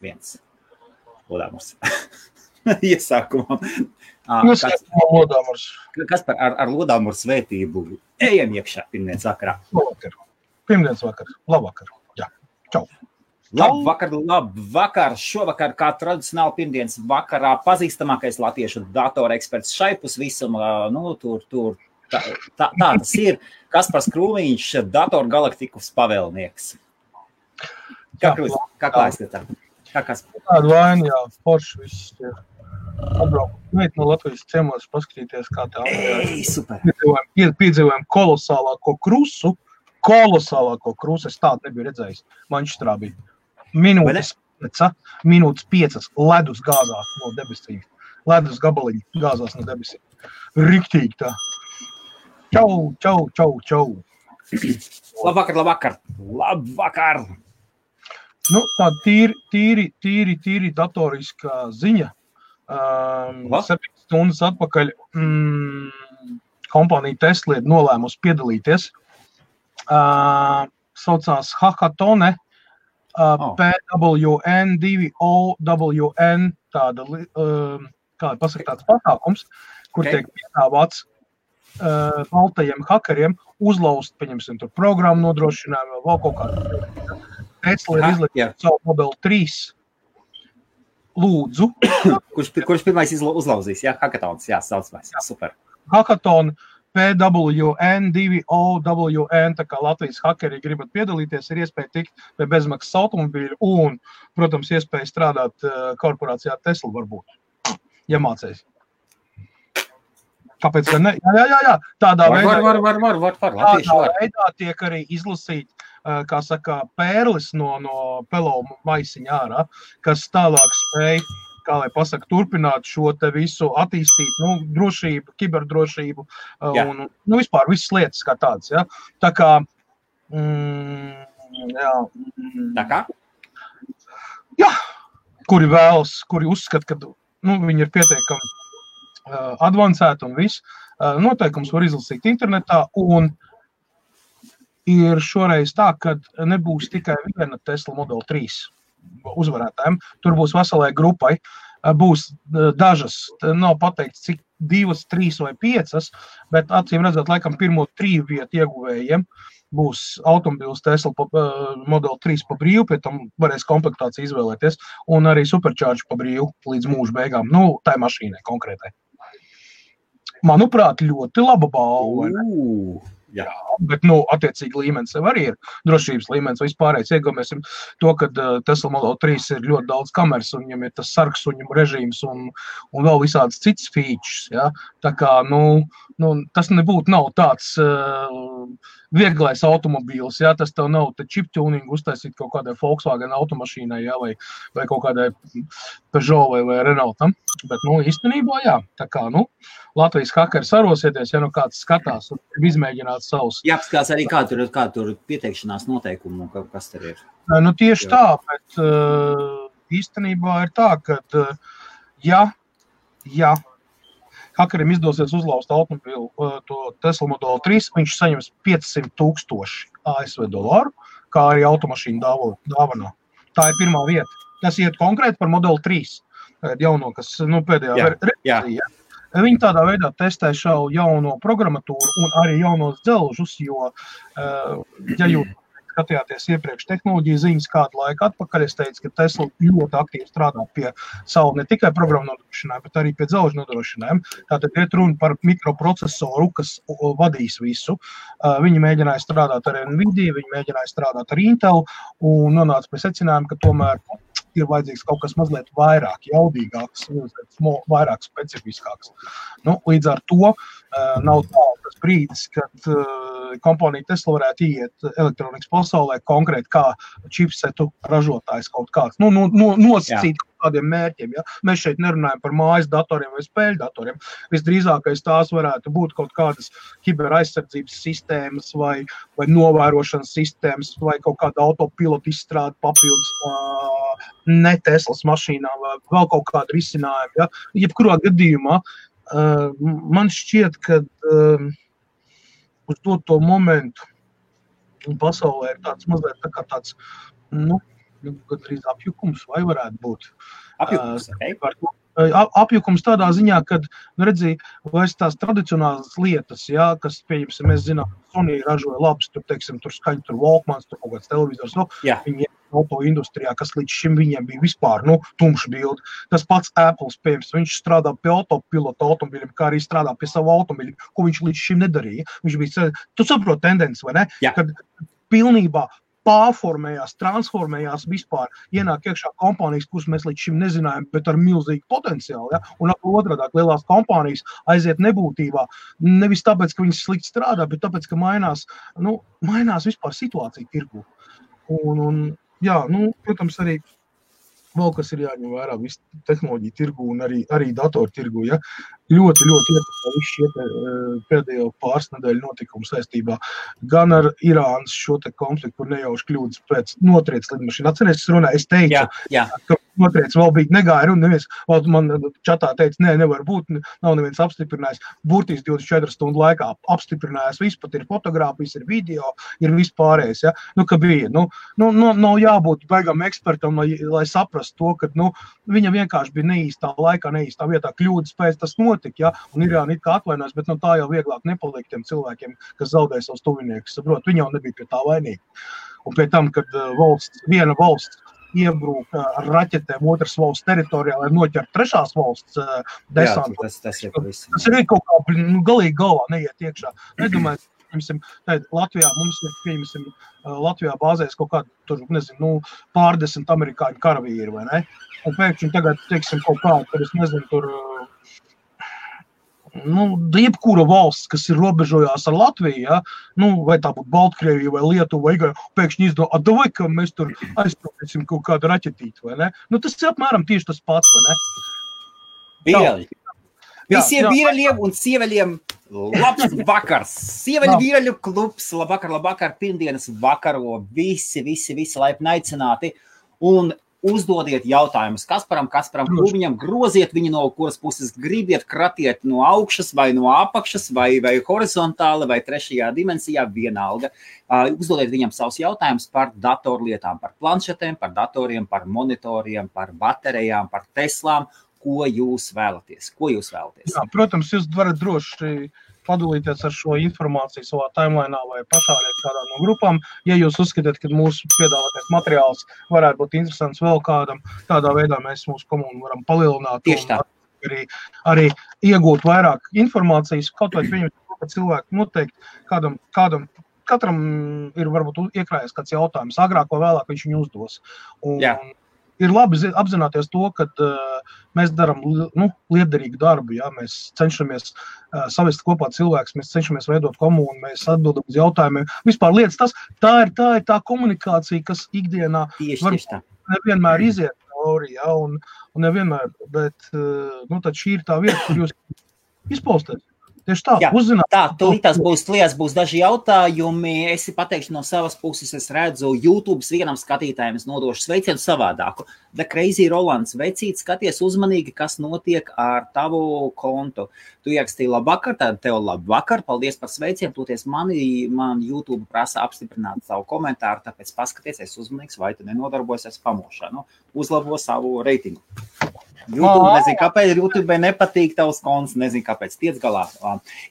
viens. Lodāmurs. Iesākumā. Kaspar, ar lodāmuru svētību ejam iekšā pirmdienas vakarā. Pirmdienas vakar. Labvakar. Jā. Čau. Labvakar. Šovakar, kā tradicionāli pirmdienas vakarā, pazīstamākais latviešu datora eksperts šaipus visumā, tā tas ir. Kaspars Krūmiņš, Datoru galaktikas pavēlnieks. Kā klājas tā? Tāda vaina, jā, forši viss ir. Atbraukt no Latvijas ciemos, paskatīties, kā tā. Super. Piedzīvojam kolosālāko krusu. Es tādu nebiju redzējis. Mančestrā bija minūtes 5 ledus gāzās no debesīm. Ledus gabaliņi gāzās no debesīm. Riktīgi tā. Čau. Labvakar. Nu, tāda tīri datoriskā ziņa. 7 stundas atpakaļ kompānija Tesla ir nolēmusi piedalīties. Saucās Hackathone, PWN, 2OWN, tāda, kā pasaka, tāds pasākums, kur tiek piedāvāts baltajiem hakeriem uzlaust, pieņemsim, tur programmu nodrošinājumu, vēl kaut kādu. Tesla ir izliekot savu Model 3. Lūdzu. Kurš pirmais uzlauzīs? Jā, Hackathons, jā, saucamais. Jā, super. Hackathon, PWN, 2OWN, tā kā Latvijas hakeri gribat piedalīties, ir iespēja tikt pie bezmaksas automobīļu un, protams, iespēja strādāt korporācijā Tesla varbūt, ja mācēs. Kāpēc gan ne? Jā. Tādā veidā tiek arī izlasīt, kā saka, pērlis no pelomu maisiņa ārā, kas tālāk spēj, kā lai pasaka, turpināt šo te visu attīstīt, drošību, kiberdrošību un, vispār visas lietas kā tādas, ja. Tā kā, Tā kā? Jā, kuri vēlas, kuri uzskata, ka, viņi ir pietiekami advancēti un viss. Noteikums var izlasīt internetā un ir šoreiz tā, ka nebūs tikai viena Tesla Model 3 uzvarētājiem. Tur būs veselai grupai. Būs dažas, nav pateikts, cik 2, 3 vai 5, bet acīm redzot, laikam pirmo 3 vietu ieguvējiem būs automobīls Tesla Model 3 pa brīvu, pie tam varēs komplektāciju izvēlēties, un arī Supercharge pa brīvu līdz mūža beigām. Tai mašīnai konkrētai. Manuprāt, ļoti laba balva. Jā, bet, attiecīgi līmenis sev arī ir drošības līmenis vispārējais. Iegaumēsim to, ka Tesla Model 3 ir ļoti daudz kameras, un viņam ir tas sarksuņu režīms un vēl visādas citas features, ja. Tā kā, tas nav tāds vieglais automobīls, ja, tas tev nav chip tuning uztaisīt kaut kādai Volkswagen automašīnai, ja, vai kaut kādai Peugeot vai Renaultam. Bet, īstenībā, jā, tā kā, Latvijas hakeri sarosieties, ja kāds skatās un izmēģināt savus. Jāapskās arī, kā tur pieteikšanās noteikumu, kas tur ir. Tieši tā, bet īstenībā ir tā, ka, ja hakerim izdosies uzlauzt automobīlu, to Tesla Model 3, viņš saņems 500,000 ASV dolāru, kā arī automašīnu dāvanā. Tā ir pirmā vieta. Tas iet konkrēti par Model 3, jauno, kas, pēdējā versijā. Viņi tādā veidā testē šo jauno programmatūru un arī jaunos dzelžus, jo, ja jūs skatījāties iepriekš tehnoloģiju ziņas kādu laiku atpakaļ, es teicu, ka Tesla ļoti aktīvi strādā pie savu ne tikai programmu nodrošinājumu, bet arī pie dzelžu nodrošinājumu. Tātad iet runa par mikroprocesoru, kas vadīs visu. Viņi mēģināja strādāt ar Nvidia, viņi mēģināja strādāt ar Intel un nonāca pie secinājuma, ka tomēr ir vajadzīgs kaut kas mazliet vairāk jaudīgāks, vairāk specifiskāks. Līdz ar to nav tas brīdis, kad kompānija Tesla varētu iet elektronikas pasaulē konkrēti kā čipsetu ražotājs kaut kāds. Nosacīt kaut kādiem mērķiem. Ja? Mēs šeit nerunājam par mājas datoriem vai spēļu datoriem. Visdrīzākais tās varētu būt kaut kādas kiberaizsardzības sistēmas vai novērošanas sistēmas vai kaut kāda autopilota izstrāde papildus ne Teslas mašīnām vai vēl kaut kāda risinājuma. Ja? Jebkurā gadījumā man šķiet, ka uz to momentu pasaulē ir tāds mazliet tā kā tāds, gandrīz apjukums, vai varētu būt. Apjukums, Apjukums tādā ziņā, kad, redzi, vairs tās tradicionālas lietas, jā, kas, pieņemsim, mēs zinām, Sony ražoja labs, tur, teiksim, tur skaņa, tur Walkmans, tur kaut kāds televizors, viņi auto industrijā, kas līdz šim viņiem bija vispār, tumša bildi. Tas pats Apples, pieņemsim, viņš strādā pie autopilota automobiļiem, kā arī strādā pie savu automobiļu, ko viņš līdz šim nedarīja. Viņš bija, tu saproti tendenci, vai ne? Jā. Kad pilnībā pārformējās, transformējās vispār, ienāk iekšā kompānijas, kuras mēs līdz šim nezinājām, bet ar milzīgu potenciālu, ja? Un otrādāk lielās kompānijas aiziet nebūtībā, nevis tāpēc, ka viņas slikti strādā, bet tāpēc, ka mainās vispār situācija tirgu. Protams, arī vēl kas ir jāņem vērā visu tehnoloģiju tirgu un arī datoru tirgu, ja? Ļoti ietekmē visu šie pēdējo pāris nedēļu notikumu saistībā gan ar Irānas šo te konfliktu, kur nejauši kļūdas pēc notriec lidmašīna. Atceries, es teicu, ka notriec vēl bija negāja un neviens, man čatā teica, nevar būt, nav neviens apstiprinājis. Burtiski 24 stundu laikā apstiprinājās, viss pat ir fotogrāfijas, ir video, ir viss pārējais, ja? Ka bija, nav jābūt baigam ekspertam, lai saprastu to, ka, viņa vienkārši bija neīstā laikā, neīstā vietā, kļūdas pēc tas notika, ja? Un Irāna it kā atvainojas, bet tā jau vieglāk nepaliek tiem cilvēkiem, kas zaudēja savus tuviniekus, saprot, viņi jau nebija pie tā vainīgi. Un pie tam, kad viena valsts iebrūk ar raķetēm otras valsts teritorijā, lai noķert trešās valsts desantu. Tas ir kaut kā galīgi galvā neiet iekšā. Nedomāju, Latvijā mums ir, Latvijā bāzēs kaut kādu, tur, pārdesmit amerikāņu karavīri, vai ne? Un pēkšņi tagad, teiksim, kaut kā, tur es nezinu, tur, jebkura valsts, kas ir robežojās ar Latviju, ja? Vai tā būtu Baltkrievija vai Lietuva, vai Igaunija, pēkšņi izdomā, vai ka mēs tur aizpildīsim kaut kādu raķetīti, vai ne? Tas ir apmēram tieši tas pats, vai ne? Vīreļi. Visiem vīreļiem un sieveļiem labs vakars. Sieveļu vīreļu klubs, labvakar, pirmdienas vakaro, visi laipni aicināti. Un uzdodiet jautājumus Kasparam Krūmiņam, groziet viņu no kuras puses gribiet, kratiet no augšas vai no apakšas vai horizontāli vai trešajā dimensijā, vienalga. Uzdodiet viņam savus jautājumus par datorlietām, par planšetēm, par datoriem, par monitoriem, par baterijām, par Teslām. Ko jūs vēlaties? Jā, protams, jūs varat droši padalīties ar šo informāciju savā timelainā vai pašāriet kādā no grupām. Ja jūs uzskatāt, ka mūsu piedāvātais materiāls varētu būt interesants vēl kādam, tādā veidā mēs mūsu komunu varam palielināt. Tieši tā. Arī iegūt vairāk informācijas, kaut vai pieņemt, ka cilvēki noteikti katram ir varbūt iekrājies kāds jautājums, agrāk vai vēlāk viņš viņu uzdos. Ir labi apzināties to, ka mēs darām liederīgu darbu, ja? Mēs cenšamies savest kopā cilvēkus, mēs cenšamies veidot komunu, mēs atbildam uz jautājumiem. Vispār lietas tā ir tā komunikācija, kas ikdienā nevienmēr iziet cauri, ja? Un nevienmēr, bet tad šī ir tā vieta, kur jūs izpausties. Tieši tā, uzzināt. Tā, tūlītās būs daži jautājumi. Es pateikšu no savas puses, es redzu YouTube vienam skatītājiem, es nodošu sveicienu savādāku. The Crazy Rolands, vecīt, skaties uzmanīgi, kas notiek ar tavu kontu. Tu ierakstīji labvakar, tad tev labvakar, paldies par sveicienu, toties man YouTube prasa apstiprināt savu komentāru, tāpēc paskaties, es uzmanīgs, vai tu nenodarbojies ar spamošanu, uzlabo savu reitingu. YouTube, nezinu, kāpēc YouTube nepatīk tavs konts, nezinu, kāpēc, tiec galā.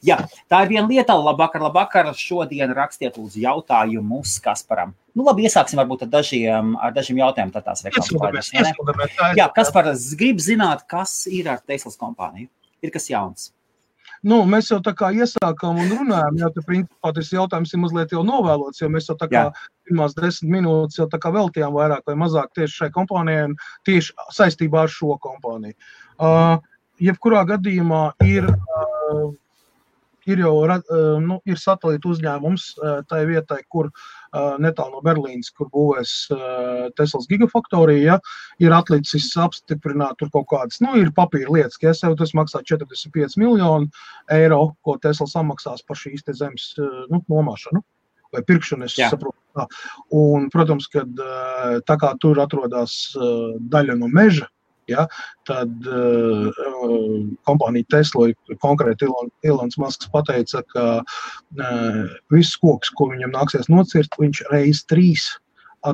Jā, tā ir viena lieta, labvakar, šodien rakstiet lūdzu jautājumus Kasparam. Labi, iesāksim varbūt ar dažiem jautājumiem, tad tās reklāmas. Jā, Kaspar, grib zināt, kas ir ar Teslas kompāniju? Ir kas jauns? Mēs jau tā kā iesākām un runājām, jo principā tas jautājums ir mazliet jau novēlots, jo mēs jau tā kā pirmās 10 minūtes jau tā kā veltījām vairāk vai mazāk tieši šai kompānijai un tieši saistībā ar šo kompāniju. Jebkurā gadījumā ir satelīta uzņēmums tai vietai, kur netālu no Berlīnas, kur būvēs Teslas gigafaktorija, ir atlicis apstiprināt tur kaut kādas, ir papīra lietas, ka tas maksā 45 miljonu eiro, ko Tesla samaksās par šīs te zemes nomāšanu vai pirkšanu, es saprotu. Un, protams, kad tā kā tur atrodas daļa no meža, tad kompānija Tesla, konkrēti Elons Musks pateica, ka viss koks, ko viņam nāksies nocirt, viņš reiz 3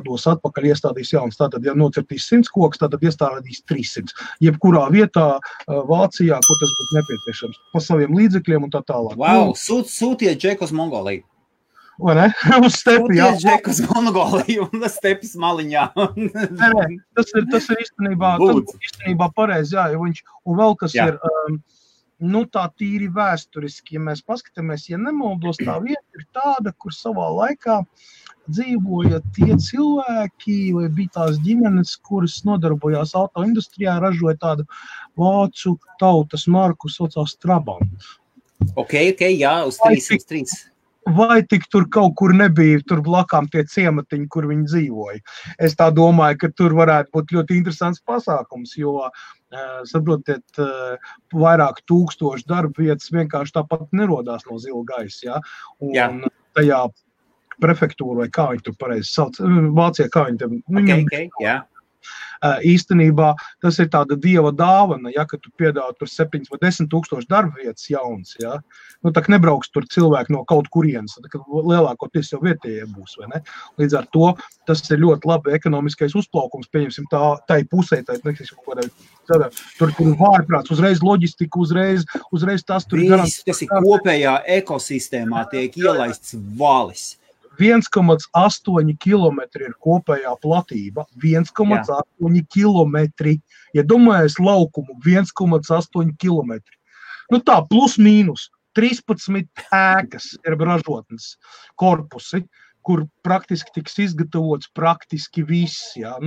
dos atpakaļ, iestādīs jauns. Tātad, ja nocirtīs 100 kokus, tātad iestādīs 300. Jebkurā vietā Vācijā, kur tas būtu nepieciešams, pa saviem līdzekļiem un tā tālāk. Wow, sūtiet Džeku uz Mongoliju. Vai ne? Uz stepi, jā. Sūtiet Džeku uz Mongoliju un stepis maliņā. Nē, tas ir īstenībā pareizi, jā, un vēl kas ir, tā tīri vēsturiski, ja mēs paskatāmies, ja nemaldos, tā vieta ir tāda, kur savā laikā dzīvoja tie cilvēki, vai bija tās ģimenes, kuras nodarbojās autoindustrijā, ražoja tādu vācu tautas marku, saucās Trabant. Ok, jā, uz 303. Vai tik tur kaut kur nebija tur blakām tie ciematiņi, kur viņi dzīvoja. Es tā domāju, ka tur varētu būt ļoti interesants pasākums, jo, saprotiet, vairāk tūkstoši darba vietas vienkārši tāpat nerodās no zila gaisa, ja? Un tajā prefektūra, vai kā viņi tur pareizi sauc, Vācijā, kā viņi tam... Okay, jā. Īstenībā tas ir tāda dieva dāvana, ja, ka tu piedāvā tur 7 vai 10 tūkstoši darba vietas jauns, ja. Tā nebrauks tur cilvēki no kaut kurienes, tā lielākoties jau vietējie būs, vai ne? Līdz ar to tas ir ļoti labi ekonomiskais uzplaukums, pieņemsim tai pusē, tur vārprāts, uzreiz loģistika, uzreiz tas tur ir. Tas ir kopējā ekosistēmā tiek ielaists valis. 1,8 kilometri ir kopējā platība, 1,8 kilometri. Ja domājies laukumu, 1,8 kilometri. Tā, plus mīnus, 13 ēkas ir ražotnes korpusi, kur praktiski tiks izgatavots praktiski viss, jā.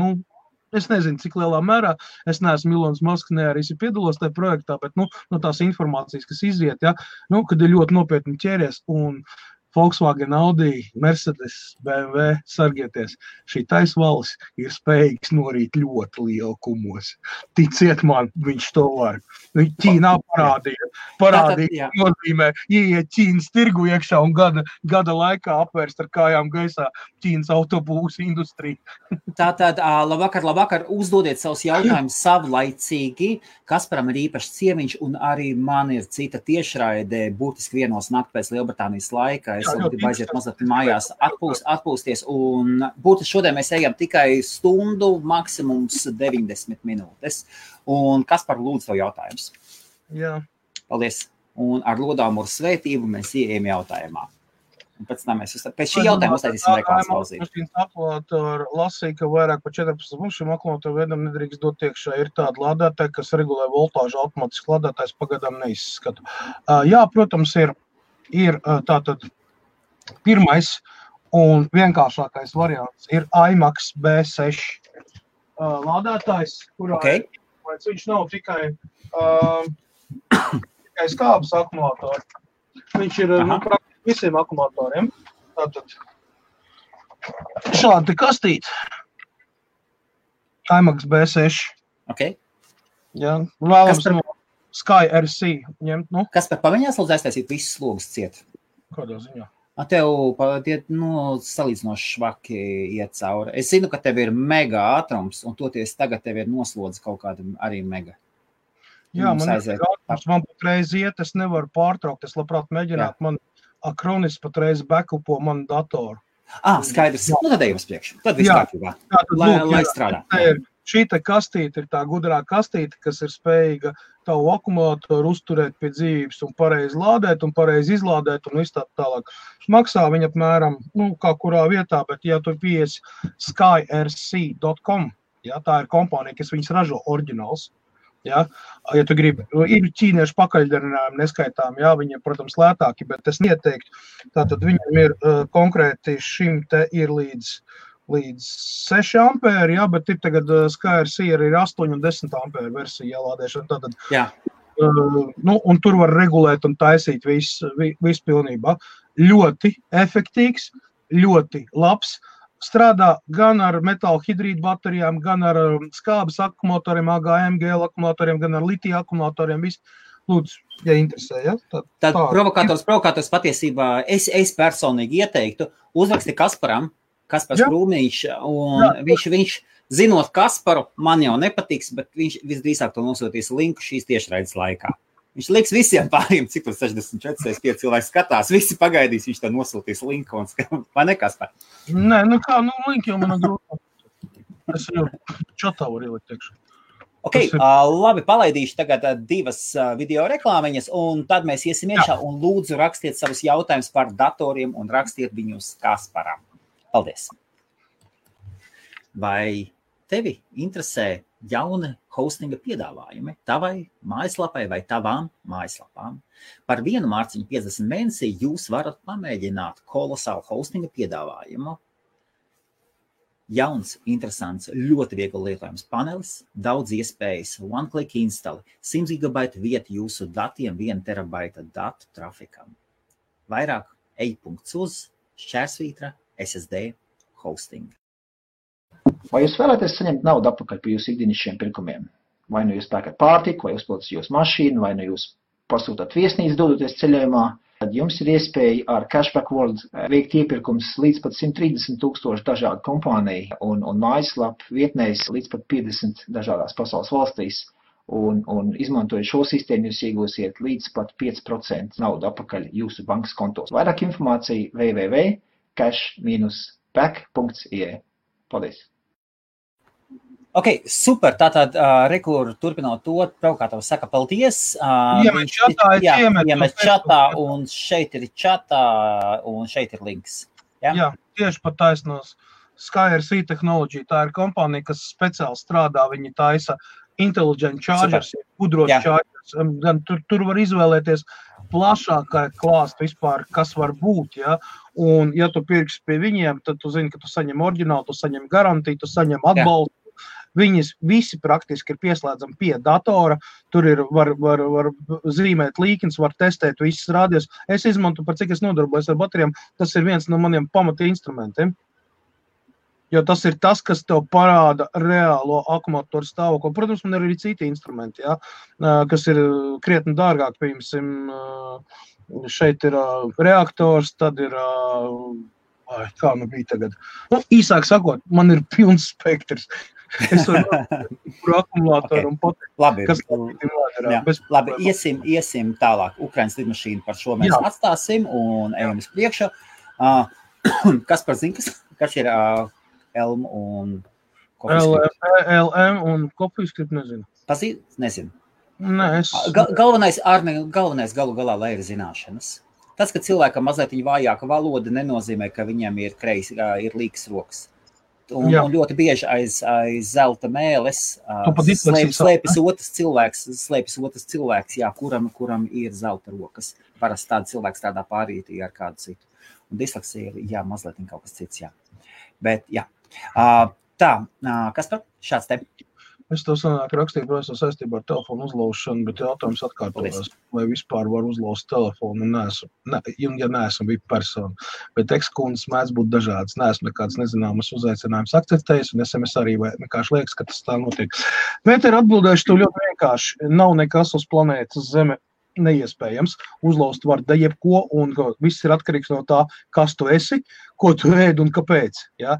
Es nezinu, cik lielā mērā, es neesmu Ilons Masks, ne arī piedalos tajā projektā, bet, no tās informācijas, kas iziet, jā, kad ir ļoti nopietni ķēries un Volkswagen, Audi, Mercedes, BMW, sargieties, šī taisvalis ir spējīgs norīt ļoti lielu kumos. Ticiet man, viņš to var. Ķīnā parādīja, nozīmē, ieiet Ķīnas tirgu iekšā un gada laikā apvērst ar kājām gaisā Ķīnas autobūsu industriju. Tātad, labvakar, uzdodiet savus jautājumus savlaicīgi. Kasparam ir īpašs ciemiņš un arī man ir cita tiešraide, būtiski vienos nakti pēc Lielbritānijas laika. Es gribu aiziet mazliet mājās atpūsties un būtiski šodien mēs ejam tikai stundu, maksimums 90 minūtes. Un Kaspar, lūdzu tev jautājums. Jā. Paldies. Un ar lodāmuru svētību mēs ieejam jautājumā. Un pēc tam mēs pēc šī jautājuma uztaisīsim reklāmas pauzīti. Akumulātori lasīja, ka vairāk par 14 mums šim akumulātoru veidam nedrīkst dot iekšā. Ir tāda lādētāja, kas regulē voltāžu, automātiski lādētājs pagadām neizskatu. Jā, protams, ir tātad pirmais un vienkāršākais variants ir IMAX B6 lādētājs, kurā viņš nav tikai skābes akumulātori. Viņš ir praktiski visiem akumulatoriem. Tātad šādi kastīti. IMAX B6. Jā, vēlams Sky RC ņemt, Kaspar, paviņās lūdzu aiztaisīt visus slogus ciet? Kādā ziņā? Tev salīdzinoši švaki iet cauri. Es zinu, ka tev ir mega ātrums, un toties tagad tev ir noslodzi kaut kāda arī mega. Jā, man patreiz iet, es nevaru pārtraukt, es labprāt mēģināt, man Acronis patreiz backupo manu datoru. Skaidrs. Tad ejam uz priekšu. Tad viss kārtībā. Lai strādā. Šī te kastīte ir tā gudrā kastīte, kas ir spējīga tavu akumulātoru uzturēt pie dzīvības un pareizi lādēt un pareizi izlādēt un viss tā tālāk. Maksā viņa apmēram, kā kurā vietā, bet ja tu piesi skyrc.com, tā ir kompānija, kas viņas ražo oriģināls. Ja tu gribi, ir ķīniešu pakaļdarinājumi neskaitām, viņiem, protams, lētāki, bet es neieteiktu. Tātad viņam ir konkrēti šim te ir līdz 6 ampēri, bet ir tagad SkyRC ir 8 un 10 ampēri versija ielādēšana. Tātad, un tur var regulēt un taisīt visu pilnībā. Ļoti efektīgs, ļoti labs. Strādā gan ar metāla hidrīdu baterijām, gan ar skābes akumulatoriem, AGM-GL akumulatoriem, gan ar litija akumulatoriem. Viss. Lūdzu, ja interesē, Tad provokators patiesībā es personīgi ieteiktu uzraksti Kasparam, Kaspars Krūmiņš, un viņš, zinot Kasparu, man jau nepatiks, bet viņš visdrīzāk to nosūtīs linku šīs tiešraides laikā. Viņš liks visiem pāriem, cik tur 64, 65 cilvēki skatās, visi pagaidīs, viņš tā nosūtīs linku, vai ne, Kaspar? Nē, link jau man grūti. Es jau čatā varu ielikt iekšā. Ok, labi, palaidīšu tagad 2 video reklāmiņas, un tad mēs iesim iekšā un lūdzu rakstiet savus jautājumus par datoriem un rakstiet viņus Kasparam. Paldies! Vai tevi interesē jauni hostinga piedāvājumi tavai mājaslapai vai tavām mājaslapām? Par 1 mārciņu 50 mēnesī jūs varat pamēģināt kolosālu hostinga piedāvājumu. Jauns, interesants, ļoti viegli lietojams panelis, daudz iespējas, one-click install, 100 GB vieta jūsu datiem, 1 terabaita datu trafikam. Vairāk ej.uz/SSD hosting. Vai jūs vēlaties saņemt naudu atpakaļ par jūsu ikdienišķiem pirkumiem? Vai nu jūs pērkat pārtiku, vai uzpildat jūsu mašīnu, vai nu jūs pasūtāt viesnīcu dodoties ceļojumā, tad jums ir iespēja ar Cashback World veikt iepirkums līdz pat 130,000 dažādu kompāniju un mājaslapu vietnēs līdz pat 50 dažādās pasaules valstīs. Un izmantojot šo sistēmu, jūs iegūsiet līdz pat 5% naudu atpakaļ jūsu bankas kontos. Vairāk informācija www.cash-back.ie. Paldies! Ok, super, tātad rekur turpinot to, Provokātavs saka paldies. Iemet čatā, iemet čatā, un šeit ir čatā, un šeit ir links. Ja? Jā, tieši pat taisnos. SkyRC Technology, tā ir kompānija, kas speciāli strādā, viņi taisa intelligent chargers, gudros chargers. Gan tur var izvēlēties plašākai klāstu vispār, kas var būt, ja? Un ja tu pirksi pie viņiem, tad tu zini, ka tu saņem oriģinālu, tu saņem garantiju, tu saņem atbalstu. Viņas visi praktiski ir pieslēdzami pie datora, tur ir var zīmēt līknes, var testēt visas rādījus. Es izmantu, par cik es nodarbojos ar baterijām, tas ir viens no maniem pamata instrumentiem. Jo tas ir tas, kas tev parāda reālo akumulātoru stāvokli. Protams, man ir arī citi instrumenti, ja, kas ir krietni dārgāk, piemēram, šeit ir reaktors, tad ir, kā nu bija tagad. Nu, īsāk sakot, man ir pilns spektrs. Es varu par akumulātoru un pateikt, kas labi, iesim tālāk. Ukrainas lidmašīna par šo mēs atstāsim un ejam uz priekšu. Kas par zin, kas ir Elm un CoffeeScript? LM un CoffeeScript nezinu. Pazīt? Nezinu. Nē, galvenais galu galā, lai ir zināšanas. Tas, ka cilvēkam mazliet vājāka valoda, nenozīmē, ka viņam ir līkas rokas. Un ļoti bieži aiz zelta mēles slēpjas otrs cilvēks, jā, kuram ir zelta rokas. Parasti tāda cilvēks tādā pārītī ar kādu citu. Un disleksija ir, jā, mazliet kaut kas cits, jā. Bet, jā. Tā, kas par šāds te? Es to sanāk rakstīju, protams, saistībā ar telefonu uzlaušanu, bet jautājums atkārtojās, vai vispār var uzlaust telefonu, ja neesmu VIP persona. Bet ekskundas mēdz būt dažādas, neesmu nekāds nezināmas uzaicinājums akceptējis, un SMS arī vienkārši liekas, ka tas tā notiek. Bet ir atbildējuši to ļoti vienkārši. Nav nekas uz planētas Zeme neiespējams. Uzlaust var da jebko, un viss ir atkarīgs no tā, kas tu esi, ko tu ēd un kāpēc. Ja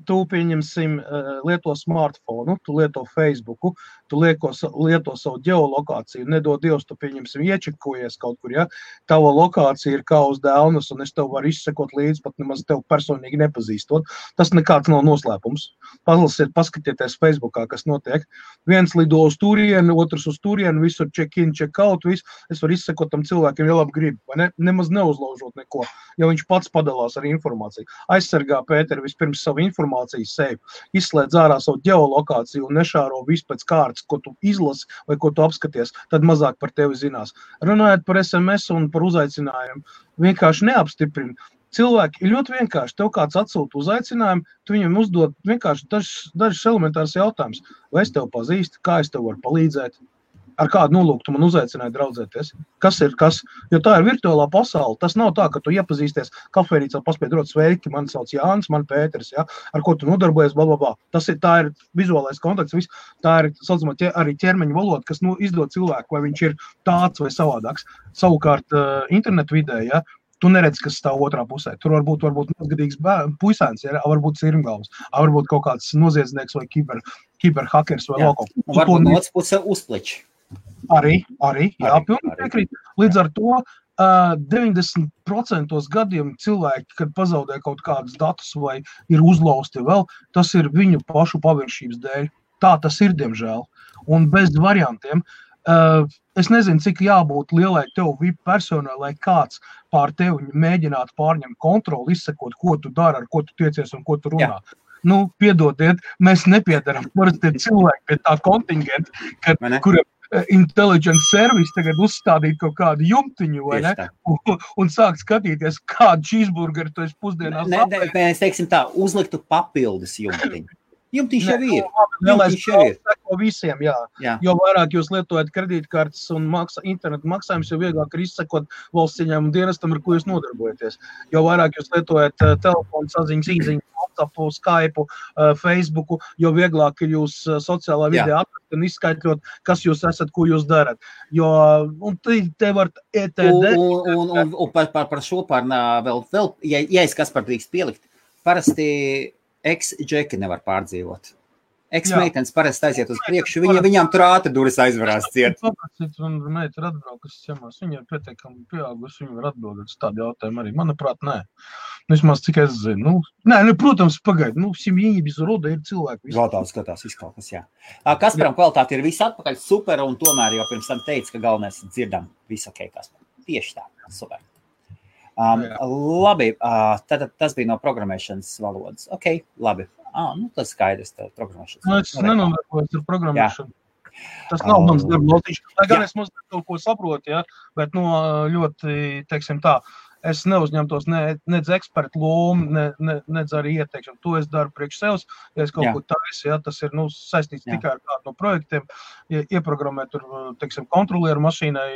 tu, pieņemsim, lieto smartphonu, tu lieto Facebooku, tu lieto savu ģeolokāciju, nedod Dievs, tu, pieņemsim, iečekojies kaut kur, ja? Tava lokācija ir kā uz dēlnas, un es tev varu izsekot līdz, pat nemaz tev personīgi nepazīstot. Tas nekāds nav noslēpums. Paskatieties Facebookā, kas notiek. Viens lido uz turienu, otrs uz turienu, visur check-in, check-out, viss. Es varu izsekot tam cilvēkiem, ja labi grib, vai ne? Nemaz neuzlaužot neko, ja viņš pats padalās ar informāciju. Aizsargā Pēteri vispirms savu informāciju sevi, izslēdz ārā savu ģeolokāciju un nešāro visu pēc kārtas, ko tu izlasi vai ko tu apskaties, tad mazāk par tevi zinās. Runājot par SMS un par uzaicinājumu, vienkārši neapstiprina. Cilvēki ir ļoti vienkārši. Tev kāds atsūta uzaicinājumu, tu viņam uzdod vienkārši dažas elementāras jautājumus. Vai es tev pazīstu, kā es tev varu palīdzēt? Ar kādu nolūku tu man uzaicināji draudzēties? Kas ir kas? Jo tā ir virtuālā pasaule. Tas nav tā, ka tu iepazīsties kafejnīcā, paspēj dot sveiki, mani sauc Jānis, man Pēters, ja? Ar ko tu nodarbojies, blablabla. Tā ir vizuālais kontakts, viss. Tā ir, saucamā, arī ķermeņa valoda, kas izdod cilvēku, vai viņš ir tāds vai savādāks. Savukārt internetu vidē, ja? Tu neredz, kas stāv otrā pusē. Tur varbūt mazgadīgs puisēns, ja? Varbūt sirmgalvs, varbūt kaut kāds noziedznieks vai kiberhakers vai loko. Varbūt no otras puses uzpliči. Arī, jā, pilnīgi piekrīt. Līdz ar to 90% gadiem cilvēki, kad pazaudē kaut kādus datus vai ir uzlausti vēl, tas ir viņu pašu paviršības dēļ. Tā tas ir, diemžēl. Un bez variantiem. Es nezinu, cik jābūt lielai tev VIP personai, lai kāds pār tevi mēģinātu pārņemt kontroli, izsekot, ko tu dari, ar ko tu tiecies un ko tu runā. Jā. Nu, piedodiet, mēs nepiedaram parasti cilvēki pie tā kontingenta, kuriem intelligence service tagad uzstādīt kaut kādu jumtiņu, vai ne? Un sākt skatīties, kādu cheeseburgeru tu esi pusdienās apēdis. Mēs teiksim tā, uzliktu papildus jumtiņu. Jumtiņš jau ir. Jumtiņš jau ir. Visiem, jā. Jo vairāk jūs lietojat kredītkartes un internetu maksājumus, jo vieglāk ir izsekot valsts ieņēmumu dienestam, ar ko jūs nodarbojaties. Jo vairāk jūs lietojat telefonu saziņas, īziņas, WhatsApp, Skype, Facebooku, jo vieglāk ir jūs sociālā vidē atrast un izskaitļot, kas jūs esat, ko jūs darat. Jo, un te var ETD. Un par šo vēl, ja es kas par drīkst pielikt, parasti ex-džeki nevar pārdzīvot. Ex-meitenes parasti aiziet uz priekšu, viņām tur ātri duris aizvarās ciet. Un meita ir atbraukusi ciemās, viņa ir pietiekami pieaugusi, viņa var atbildēt uz tādu jautājumu arī. Manuprāt, nē. Vismaz cik es zinu. Protams, pagaid, simjīņi bez roda ir cilvēki. Skatās izkalkas, jā. Kasparam kvalitāte ir viss atpakaļ super, un tomēr jau pirms tam teica, ka galvenais dzirdam visu ok, Kaspar. Tieši tā, super. Labi, tad tas bija no programmēšanas valodas. Ok, labi. Tas skaidrs, tā programmēšanas. Es nenonākos ar programmēšanu. Tas nav mans darba lotiņš. Lai gan es mazliet kaut ko saprotu, bet ļoti, teiksim tā, es neuzņemtos nedz ekspertu lomu, nedz arī ieteikšanu. To es daru priekš sevs, ja es kaut ko taisu, tas ir saistīts tikai ar kādu no projektiem. Ieprogrammēt tur, teiksim, kontrolieru mašīnai,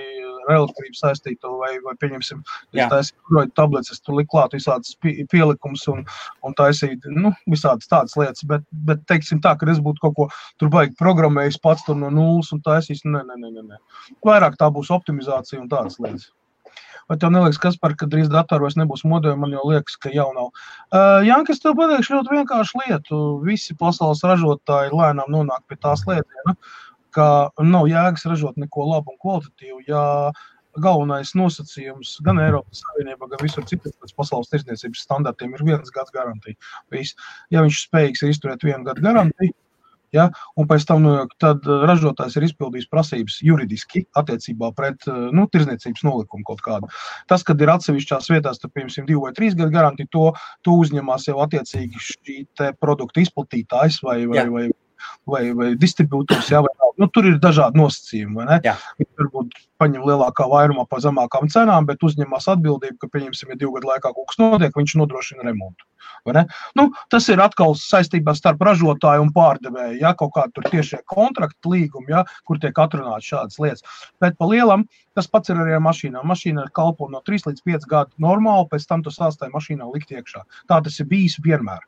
relatīvi saistīto vai pieņemsim, es taisīju tabletes, es tur liku klāt visādas pielikumus un taisīju, visādas tādas lietas, bet teiksim tā, ka es būtu kaut ko tur baigi programmējis pats tur no nulles un taisījis, nē. Vairāk tā būs optimizācija un tādas lietas. Vai tev neliekas, Kaspar, ka drīz datoru vairs nebūs modeļi, man jau liekas, ka jau nav. Janka, es tev pateikšu ļoti vienkāršu lietu. Visi pasaules ražotāji lēnām nonāk pie tās lietiena, ka nav jēgas ražot neko labu un kvalitatīvu, ja galvenais nosacījums gan Eiropas Savienībā, gan visur citur pēc pasaules tirdzniecības standartiem ir 1 gads garantija. Ja viņš spējīgs ir izturēt 1 gadu garantiju, un pēc tam tad ražotājs ir izpildījis prasības juridiski attiecībā pret tirdzniecības nolikumu kaut kādu. Tas, kad ir atsevišķās vietās, tad, piemēram, 2 vai 3 gadu garantija, to uzņemās jau attiecīgi šī te produktu izplatītājs vai distribūtors, tur ir dažādi nosacījumi, vai ne? Viņi varbūt paņem lielākā vairumā pa zemākām cenām, bet uzņemās atbildību, ka, pieņemsim, ja 2 gadu laikā kaut kas notiek, viņš nodrošina remontu. Tas ir atkal saistībā starp ražotāju un pārdevēju, kaut kā tur tiešie kontrakti līgumi, kur tiek atrunāts šādas lietas. Bet pa lielam tas pats ir arī ar mašīnām. Mašīna kalpo no 3 līdz 5 gadu normāli, pēc tam tu sāstāji mašīnā likt iekšā. Tā tas ir bijis vienmēr.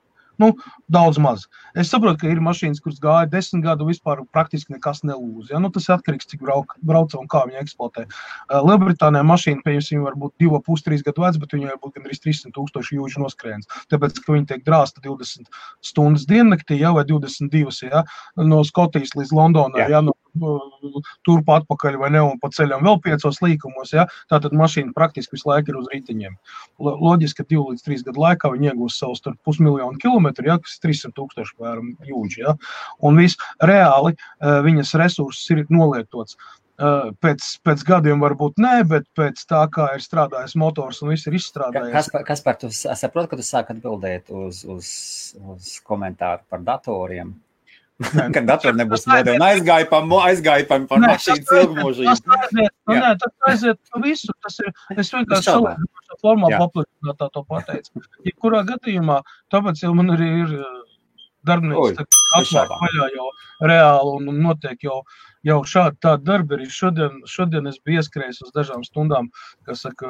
Daudz maz. Es saprotu, ka ir mašīnas, kuras gāja 10 gadu vispār praktiski nekas nelūz. Tas ir atkarīgs, cik brauca un kā viņa eksploatē. Lielbritānijā mašīna, pieņemsim, var būt 2,5–3 gadu vecs, bet viņa var būt gandrīz 300,000 jūdžu noskrējiens. Tāpēc, ka viņa tiek drāsta 20 stundas diennaktī, vai 22, no Skotijas līdz Londonai, turp atpakaļ vai ne, un pa ceļam vēl 5 līkumos, tātad mašīna praktiski visu laiku ir uz riteņiem. Loģiski, ka 2 līdz 3 gadu laikā viņi iegūs savus 500,000 kilometru, kas ir 300,000 vēram jūdži, un viss reāli viņas resursus ir nolietots. Pēc gadiem varbūt nē, bet pēc tā, kā ir strādājis motors un viss ir izstrādājies. Kaspar, tu saproti, ka tu sāk atbildēt uz komentāru par datoriem? Kad datori nebūs modeli un aizgājpam par mašīnas ilgmūžību. Tas aiziet visu. Es vienkārši savā formā paplašinātā to pateicu. Ja kurā gadījumā, tāpēc jau man arī ir darbinieks atklāt vaļā jau reāli un notiek jau šādi tādi darbi. Arī šodien es biju ieskrējis uz dažām stundām, kas saka,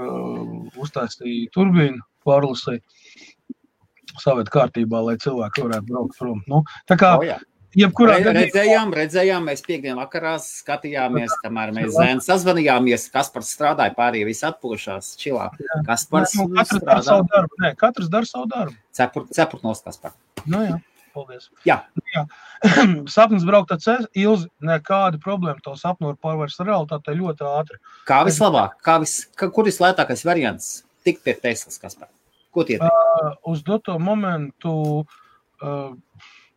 uztaistīja turbīnu, pārlasīja saviet kārtībā, lai cilvēki varētu braukt prom. Tā kā Redzējām, mēs piekdien vakarā skatījāmies, kamēr mēs zēni sazvanījāmies, Kaspars strādāja, pārējie visi atpūšās, čilā. Kaspars katrs dara savu darbu. Katrs dara savu darbu. Cepurt nos, Kaspar. Paldies. Jā. Sapnis braukt ar ceļu, Ilzi, nekāda problēma to sapnu var pārvērst realitātei ļoti ātri. Kā vislabāk? Kur vislētākais variants tikt pie Teslas, Kaspar? Ko tie teikt? Uz doto momentu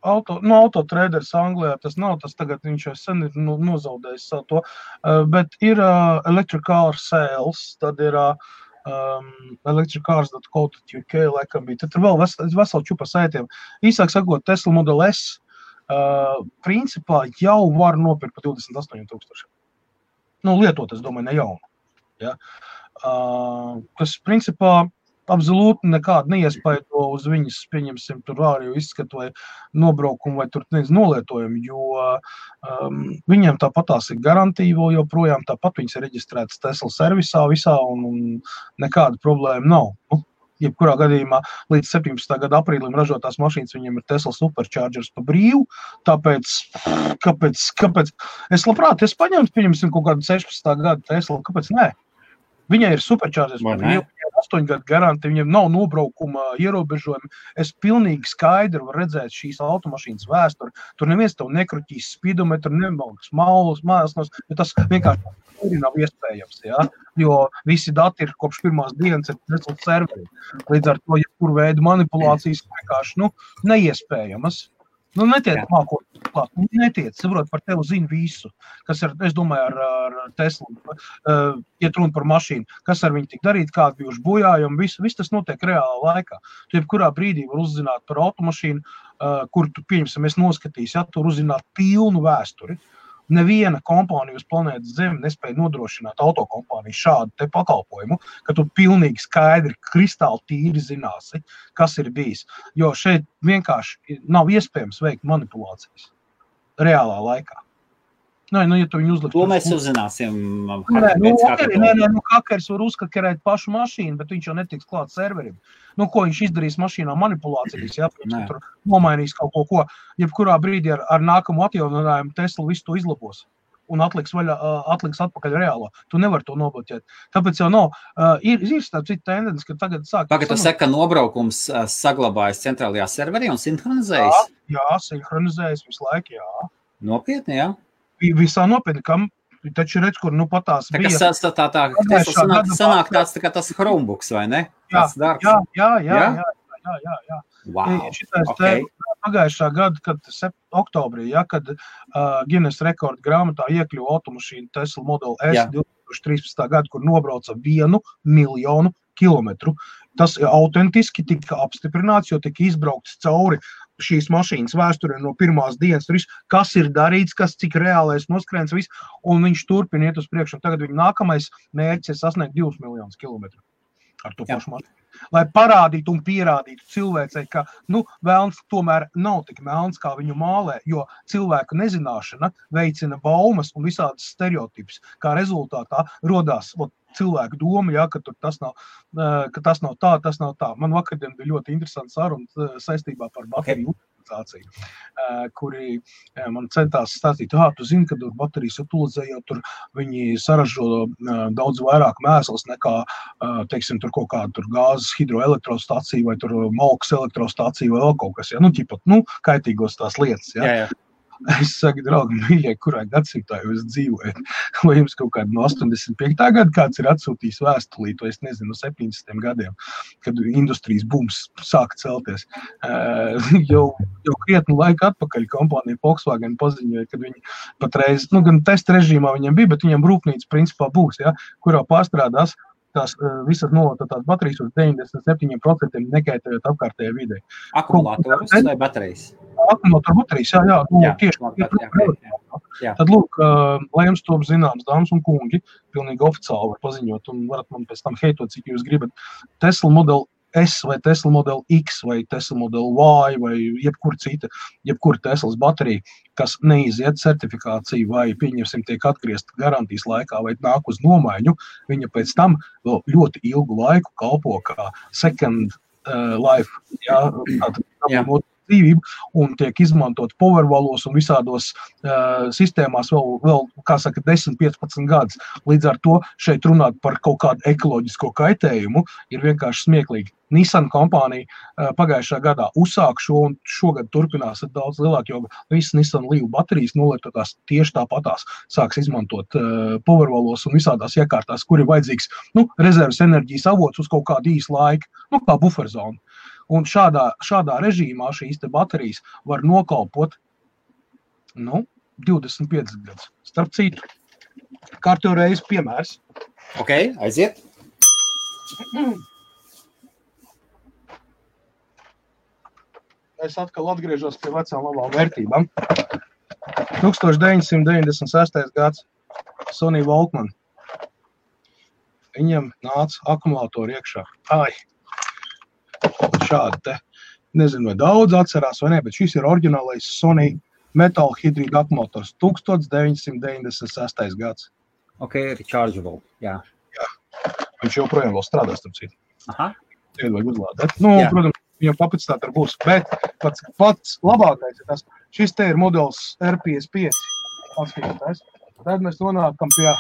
Autotraders Anglijā tas nav, tas tagad viņš jau sen ir nozaudējis savu to, bet ir Electric Car Sales, tad ir electriccars.co.uk laikam bija. Tad ir vēl vesela čupa saitiem. Īsāk sakot, Tesla Model S principā jau var nopirkt par 28,000. Lietot, es domāju, ne jaunu. Ja? Kas principā absolūti nekādu neiespaido uz viņas, pieņemsim, tur ārējo izskatu vai nobraukumu vai tur nolietojumu, jo viņiem tāpatās ir garantija vēl joprojām, tāpat viņas ir reģistrētas Tesla servisā visā un nekāda problēma nav. Jebkurā gadījumā līdz 17. gada aprīlim ražotās mašīnas viņiem ir Tesla Superchargers pa brīvu, tāpēc, kāpēc? Es labprāt, pieņemsim kaut kādu 16. gada Tesla, kāpēc nē? Viņai ir Superchargers pa brīvu, 8 gadu garanti, viņiem nav nobraukuma ierobežojumi. Es pilnīgi skaidri varu redzēt šīs automašīnas vēsturi. Tur neviens tev nekruķīs speedometru, nemalks mājas, bet tas vienkārši nav iespējams, ja? Jo visi dati ir kopš pirmās dienas ir Tesla serveri. Līdz ar to, jebkuru veidu manipulācijas vienkārši, neiespējamas. Netiec mākot klāt, netiec, saprot, par tevi zina visu, kas ir, es domāju, ar Teslu, iet runa par mašīnu, kas ar viņu tik darīt, kādi bijuši bojājumi, viss tas notiek reālā laikā. Tu jebkurā brīdī var uzzināt par automašīnu, kur tu, pieņemsim, es noskatīs, ja, tur uzzināt pilnu vēsturi. Neviena kompānija uz planētas Zemi nespēja nodrošināt autokompāniju šādu te pakalpojumu, ka tu pilnīgi skaidri, kristāli tīri zināsi, kas ir bijis. Jo šeit vienkārši nav iespējams veikt manipulācijas reālā laikā. Ja tu viņu uzlikt... To mēs uzzināsim. Hakers var uzkakerēt pašu mašīnu, bet viņš jau netiks klāt serverim. Ko viņš izdarīs mašīnā manipulācijas, ja? Tur nomainīs kaut ko. Jebkurā brīdī ar nākamu atjauninājumu Tesla visu to izlabos un atliks atpakaļ reālo. Tu nevar to nobloķēt. Tāpēc jau nav. Ir starp citu tendence, ka tagad sāk... Pagad, tu saka, ka nobraukums saglabājas centrālajā serverī un sinhronizējas? Jā, sinhronizējas visu laiku, jā. Nopietni, jā? Visā nopietni, kam taču redz, kur patās bija. Sanāk tāds tā kā tas Chromebooks, vai ne? Jā. Wow, Pagājušā gada, kad oktobrī, kad Guinness rekorda grāmatā iekļuva automašīna Tesla Model S 2013. gada, kur nobrauca 1 miljonu kilometru. Tas autentiski tika apstiprināts, jo tika izbraukts cauri šīs mašīnas vēsturē no pirmās dienas, kas ir darīts, cik reālais noskrēns, viss, un viņš turpina iet uz priekšu. Tagad viņa nākamais mērķis ir sasniegt 2 miljonus kilometru ar to pašu mašīnu. Lai parādītu un pierādītu cilvēcei, ka vēlns tomēr nav tik melns, kā viņu mālē, jo cilvēku nezināšana veicina baumas un visādas stereotipus, kā rezultātā rodās cilvēku doma, ka tas nav tā. Man vakardien bija ļoti interesants saruna saistībā par bateriju utilizāciju, kuri man centās stāstīt, tu zini, ka tur baterijas utilizējot, tur viņi saražo daudz vairāk mēsls nekā, teiksim, tur kaut kāda tur gāzes hidroelektrostacija vai tur malkas elektrostacija vai vēl kaut kas, kaitīgos tās lietas, Jā. Es saku, draugi, mīļie, kurā gadsimtā jūs dzīvojat? Vai jums kaut kādu no 85. gada kāds ir atsūtījis vēstulīt, vai es nezinu, no 70. gadiem, kad industrijas bums sāka celties. Jau krietnu laiku atpakaļ kompānija Volkswagen paziņoja, kad viņi patreiz, gan testa režīmā viņiem bija, bet viņiem rūpnīca principā būs, kurā pārstrādās tās visas nolototās baterijas uz 97% nekaitējot apkārtējai videi. Akumulātorus vai baterijas? Akumulātoru baterijas, tieši. Tad, lūk, lai jums to zināms, dāmas un kungi, pilnīgi oficiāli var paziņot, un varat man pēc tam heitot, cik jūs gribat. Tesla Model S vai Tesla Model X vai Tesla Model Y vai jebkura Teslas baterija, kas neiziet certifikāciju vai, pieņemsim, tiek atgriezt garantijas laikā vai nāk uz nomaiņu, viņa pēc tam vēl ļoti ilgu laiku kalpo kā second life, dzīvību un tiek izmantot powervalos un visādos sistēmās vēl, kā saka, 10-15 gadus. Līdz ar to šeit runāt par kaut kādu ekoloģisko kaitējumu ir vienkārši smieklīgi. Nissan kompānija pagājušā gadā uzsāk šo un šogad turpinās ar daudz lielāk, jo visas Nissan Leaf baterijas nolietotās tieši tāpatās sāks izmantot powervalos un visādās iekārtās, kur ir vajadzīgs rezerves enerģijas avots uz kaut kādu īsu laiku, kā buferzonu. Un šādā režīmā šīs te baterijas var nokalpot 25 gadus. Starp citu, kārtējo reizi piemērs. Ok, aiziet. Es atkal atgriežos pie vecām labām vērtībām. 1996. gads Sony Walkman. Viņam nāca akumulātori iekšā. Šādi te. Nezinu, vai daudz atcerās vai ne, bet šis ir oriģinālais Sony metāla hidrīda akumulators. 1996. gads. Ok, rechargeable, jā. Viņš joprojām vēl strādās, starp citu. Aha. Tagad vajag uzlādēt. Protams, viņam kapacitāte būs, bet pats labākais ir tas. Šis te ir modelis R55. Tad mēs nonākam pie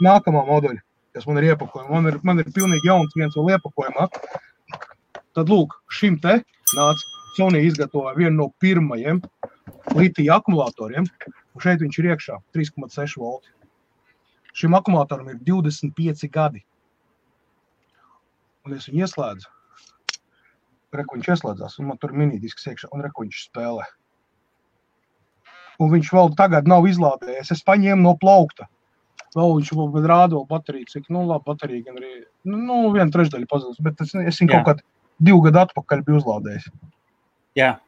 nākamā modeļa, kas man ir iepakojumā. Man ir pilnīgi jauns viens vēl iepakojumā. Tad lūk, šim te nāca Sony izgatavoja vienu no pirmajiem litija akumulatoriem, un šeit viņš ir iekšā 3,6 volti. Šim akumulatoram ir 25 gadi. Un es viņu ieslēdzu. Reku viņš ieslēdzās, un man tur minidisks iekšā, un reku viņš spēlē. Un viņš vēl tagad nav izlādējies. Es paņēmu no plaukta. Vēl viņš vēl rāda vēl bateriju, cik, labi, baterija gan arī, 1/3 pazudus, bet es viņu kaut kādu 2 gadu atpakaļ biju uzlādējis. Jā.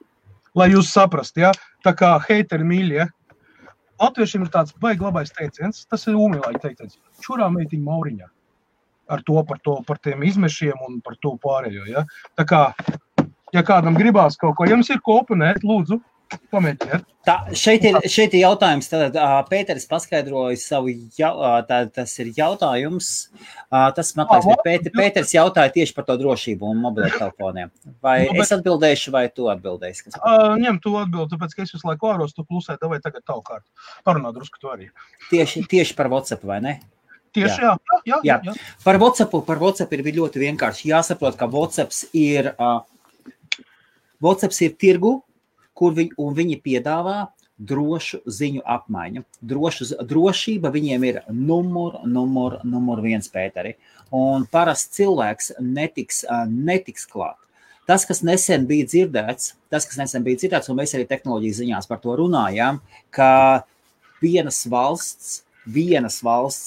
Lai jūs saprast, ja? Tā kā heiteri mīļi, ja? Latviešiem ir tāds baigi labais teiciens, tas ir ūmīlāji teiciens. Čurā meitiņa Mauriņā. Ar par tiem izmešiem un par to pārējo, ja? Tā kā, ja kādam gribās kaut ko, ja jums ir ko oponēt, lūdzu, pamēģiniet. Šeit ir jautājums, tad Pēteris paskaidroja savu, tas ir jautājums, tas, man liekas, Pēteris jautāja tieši par to drošību un mobiliem telefoniem. Vai es atbildēšu, vai tu atbildēsi? Ņem tu atbildi, tāpēc, ka es visu laiku āros, tu klusē, vai tagad tavu kārtu. Parunā drusku tu arī. Tieši par WhatsApp, vai ne? Tieši, jā. Par WhatsApp ir ļoti vienkārši. Jāsaprot, ka WhatsApp ir tirgu, un viņi piedāvā drošu ziņu apmaiņu. Drošība viņiem ir numur 1, Pēteri. Un parasts cilvēks netiks klāt. Tas, kas nesen bija dzirdēts, un mēs arī tehnoloģijas ziņās par to runājām, ka vienas valsts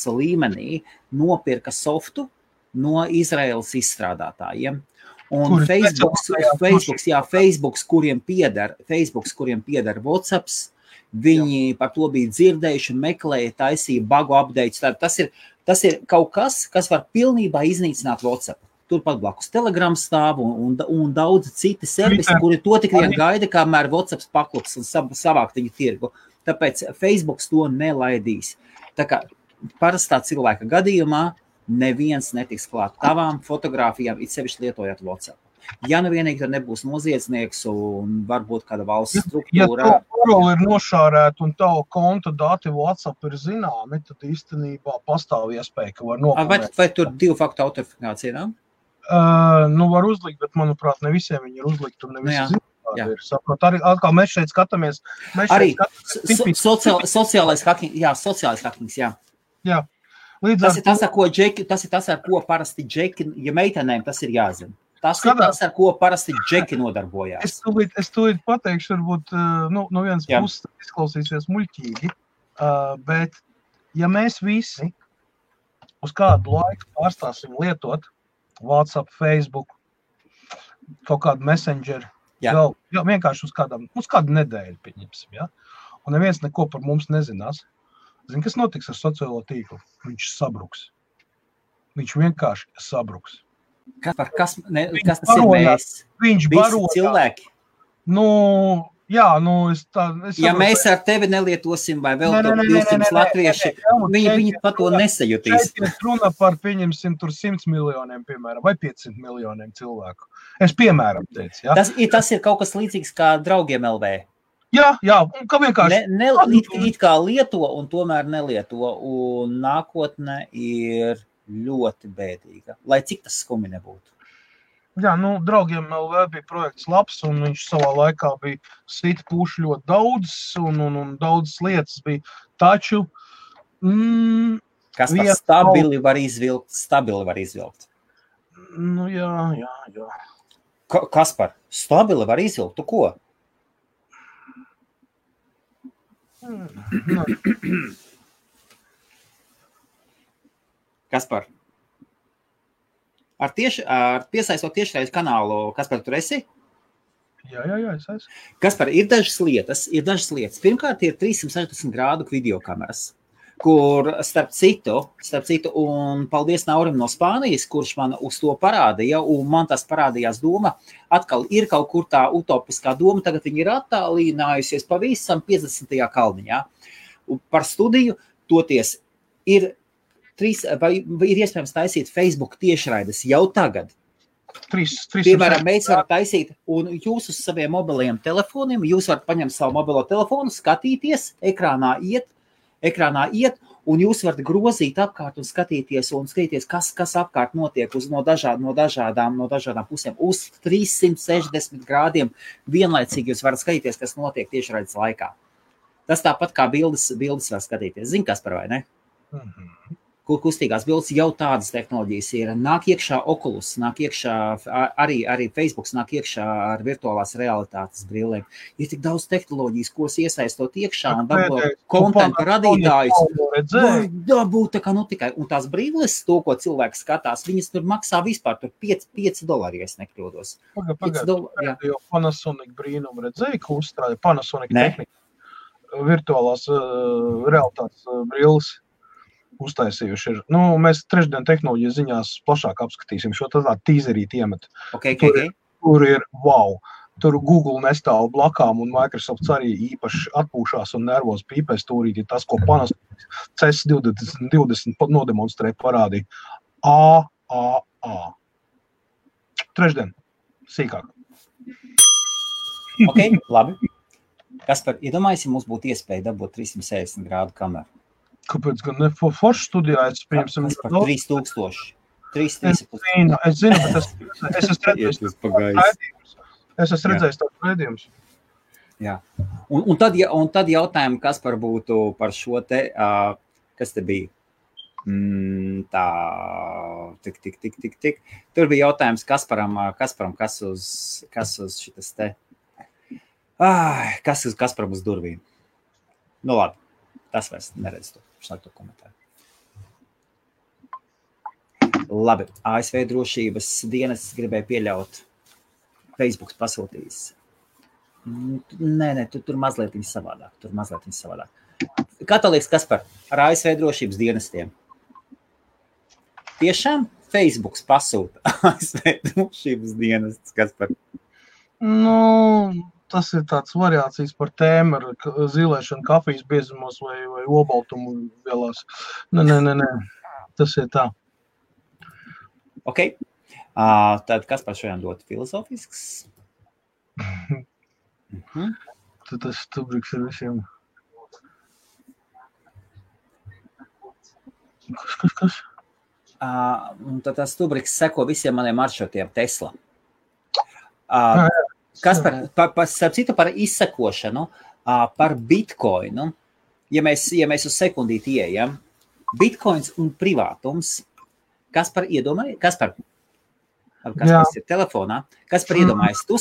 līmenī nopirka softu no Izraēlas izstrādātājiem. Un Facebooks, kuriem pieder WhatsApps, viņi par to bija dzirdējuši, meklēja, taisīja bagu updates. Tas ir kaut kas var pilnībā iznīcināt WhatsApp. Turpat blakus Telegram stāv un daudz citi servisi, kuri to tik vien gaida, kamēr WhatsApps paklups un savākt viņu tirgu. Tāpēc Facebooks to nelaidīs. Tā kā parastā cilvēka gadījumā neviens netiks klāt tavām fotogrāfijām, it sevišķi lietojot WhatsApp. Ja vienīgi tur nebūs noziedznieks un varbūt kāda valsts struktūra. Ja tu paroli ir nošārēt un tavu konta dati WhatsApp ir zināmi, tad īstenībā pastāv iespēja, ka var noklāt. Vai tur 2-faktu autentifikācija nav? Var uzlikt, bet manuprāt, ne visiem viņi ir uzlikt un ne visi zināmi. Saprot, arī atkal mēs šeit skatāmies. Arī sociālais hackings, jā. Jā. Tas ir tas, ar ko parasti džeki, ja meitenēm tas ir jāzina. Tas ir tas, ar ko parasti džeki nodarbojās. Es tūlīt pateikšu, varbūt no vienas puses izklausīsies muļķīgi, bet ja mēs visi uz kādu laiku pārstāsim lietot WhatsApp, Facebook, kaut kādu Messenger, vienkārši uz kādu nedēļu pieņemsim, ja? Un neviens neko par mums nezinās. Zini, kas notiks ar sociālo tīklu? Viņš sabruks. Viņš vienkārši sabruks. Kas tas ir mēs? Viņš visi cilvēki? Jā, nu, ja mēs ar tevi nelietosim vai vēl 200 latvieši, viņi pa to nesajutīs. Šeit ir runa par, pieņemsim, tur 100 miljoniem, piemēram, vai 500 miljoniem cilvēku. Es piemēram teicu, jā. Tas ir kaut kas līdzīgs kā draugiem LV. Jā, un kā vienkārši... It kā lieto un tomēr nelieto, un nākotne ir ļoti bēdīga, lai cik tas skumi nebūtu. Jā, nu, draugiem LV bija projekts labs, un viņš savā laikā bija sita puši ļoti daudz, un daudzas lietas bija. Taču... Kas par stabili var izvilkt? Nu, jā. Kas par stabili var izvilkt? Tu ko? Kaspar, ar piesaistot tiešraides kanālu, Kaspar, tur esi? Jā, es esmu. Kaspar, ir dažas lietas. Pirmkārt, ir 360 grādu videokameras, kur starp citu, un paldies Naurim no Spānijas, kurš man uz to parādīja, un man tas parādījās doma, atkal ir kaut kur tā utopiskā doma, tagad viņi ir attālinājusies pavisam 50. kalniņā. Un par studiju toties ir iespējams taisīt Facebook tiešraides jau tagad. Piemēram, mēs varam taisīt, un jūs uz saviem mobiliem telefoniem, jūs varat paņemt savu mobilo telefonu, skatīties, ekrānā iet, un jūs varat grozīt apkārt un skatīties, kas apkārt notiek no dažādām pusēm. Uz 360 grādiem vienlaicīgi jūs varat skatīties, kas notiek tiešraides laikā. Tas tāpat kā bildes var skatīties. Zini, Kaspar, vai ne? Kur kustīgās bildes jau tādas tehnoloģijas ir. Nāk iekšā Oculus, nāk iekšā arī Facebooks, nāk iekšā ar virtuālās realitātes brillēm. Ir tik daudz tehnoloģijas, kuras iesaistot iekšā un dabūt kontentu radītājus. Dabūt tā kā tikai. Un tās brilles, to, ko cilvēks skatās, viņas tur maksā vispār tur $5, ja es nekļūdos. Pagad, Panasonic brīnumu redzēja, ka uzstrāja Panasonic tehnika. Virtuālās realitātes brilles. Uztaisījuši ir. Nu, mēs trešdien tehnoloģijas ziņās plašāk apskatīsim šo tādu tīzerīti iemet. Tur ir wow. Tur Google nestāv blakām un Microsoft arī īpaši atpūšās un nervos pīpēs turīt. Tas, ko Panasonic CES 2020 nodemonstrē parādīja. Trešdien. Sīkāk. Labi. Kaspar, iedomājies, ja mums būtu iespēja dabūt 360 grādu kameru. Kāpēc gan ne foršu studijā? Es pieņemsim... Par 3000. 3000. Es zinu, bet es esmu redzējis tāds redzījums. Jā. Un tad jautājumu, kas par būtu par šo te, kas te bija? Tik. Tur bija jautājums Kasparam, kas uz šitas te, kas Kasparam uz durvīm. Nu labi, tas vairs neredz to. Šlāk to komentāru. Labi, ASV drošības dienas gribēja pieļaut. Facebooks pasūtījis. Nē, tur mazliet viņa savādāk. Kā tā liekas, Kaspar, ar ASV drošības dienestiem? Tiešām Facebooks pasūta ASV drošības dienestus, Kaspar? Nu... Tas ir tāds variācijas par tēmu ar zilēšanu kafijas biezumos vai obaltumu vielās. Nē. Tas ir tā. Ok. Tad kas par šodien dot filozofisks? Tad tas stubriks ir visiem. Kas? Tad tas stubriks seko visiem maniem maršrutiem Tesla. Kas starp citu par izsekošanu, par Bitcoinu, ja mēs uz sekundīti ieejam, Bitcoins un privātums, kas par ir telefonā, kas par iedomājas, tu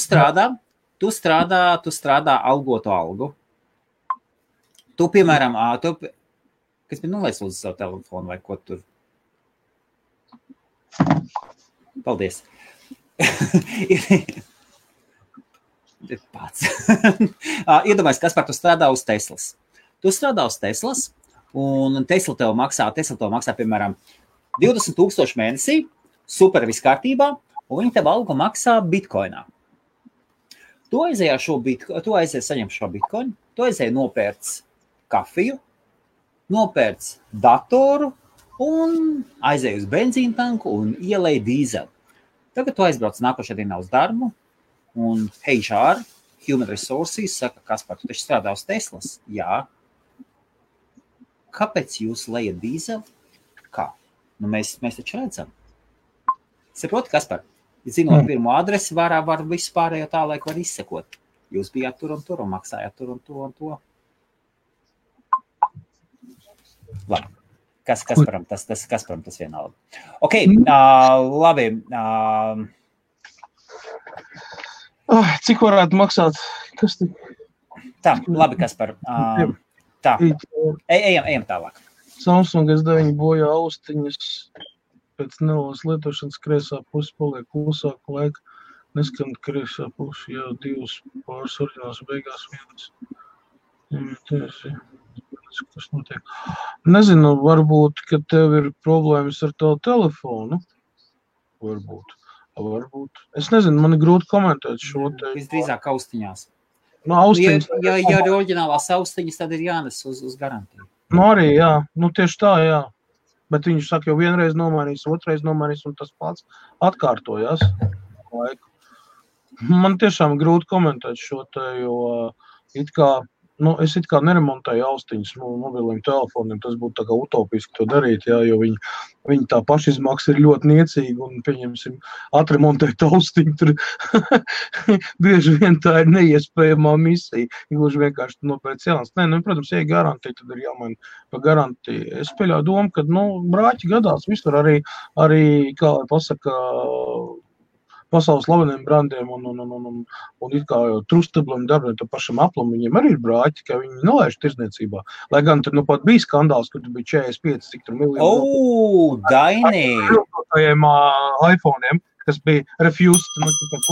strādā algoto algu. Tu, piemēram, kas bija nolaists uz savu telefonu vai ko tur? Paldies. Pats. Iedomājies, kas par tu strādā uz Teslas. Tu strādā uz Teslas, un Tesla tev maksā, piemēram, 20,000 mēnesī, super viss kārtībā, un viņi tev algu maksā Bitcoinā. Tu aizēji saņemt šo bitkoinu, tu aizēji nopērts kafiju, nopērts datoru un aizēji uz benzīna tanku un ielēji dīzeli. Tagad tu aizbrauc nākošajā dienā uz darbu un HR, Human Resources, saka, Kaspar, tu taču strādā uz Teslas? Jā. Kāpēc jūs lejat dīzeli? Kā? Nu, mēs taču redzam. Saproti, Kaspar? Zinot pirmo adresi, var visu pārējo tālāk var izsekot. Jūs bijāt tur un maksājāt tur un to. Labi. Kasparam tas vienalga. Ok, labi. Cik varētu maksāt? Kas tik? Tā, labi, Kaspar. Tā, ejam tālāk. Samsung S9 bojā austiņas. Pēc nelās lietošanas kreisā pusi paliek klusāk laika, neskan kreisā pusi, jā, 2 pāris oriģināls beigās vienas. Kas notiek? Nezinu, varbūt, ka tev ir problēmas ar tavu telefonu. Varbūt. Es nezinu, man ir grūti komentēt šo te. Visdrīzāk austiņās. No austiņas. Ja ir oriģinālās austiņas, tad ir jānes uz garantiju. Nu arī, jā. Nu tieši tā, jā. Bet viņš saka, jau vienreiz nomainīs, otrreiz nomainīs, un tas pats atkārtojās laiku. Man tiešām grūti komentēt šo te, jo es it kā neremontēju austiņas mobiliem telefoniem, tas būtu tā kā utopiski to darīt, jā, jo viņi tā pašizmaksa ir ļoti niecīga, un pieņemsim, atremontēt austiņu, tur bieži vien tā ir neiespējamā misija, gluži vienkārši nopēc jauns. Nē, protams, ja garantija, tad ir jāmaina pa garantiju. Es pieļauju domu, ka, brāķi gadās visur arī, kā pasaka, pasaules slaveniem brandiem un it kā trustabliem darbiem, to pašam Apple'am, viņiem arī ir brāķi, ka viņi nelaiž tirdzniecībā. Lai gan tur pat bija skandāls, kur tur bija 45, cik tur miljonu. Daini! iPhone'iem, kas bija refused.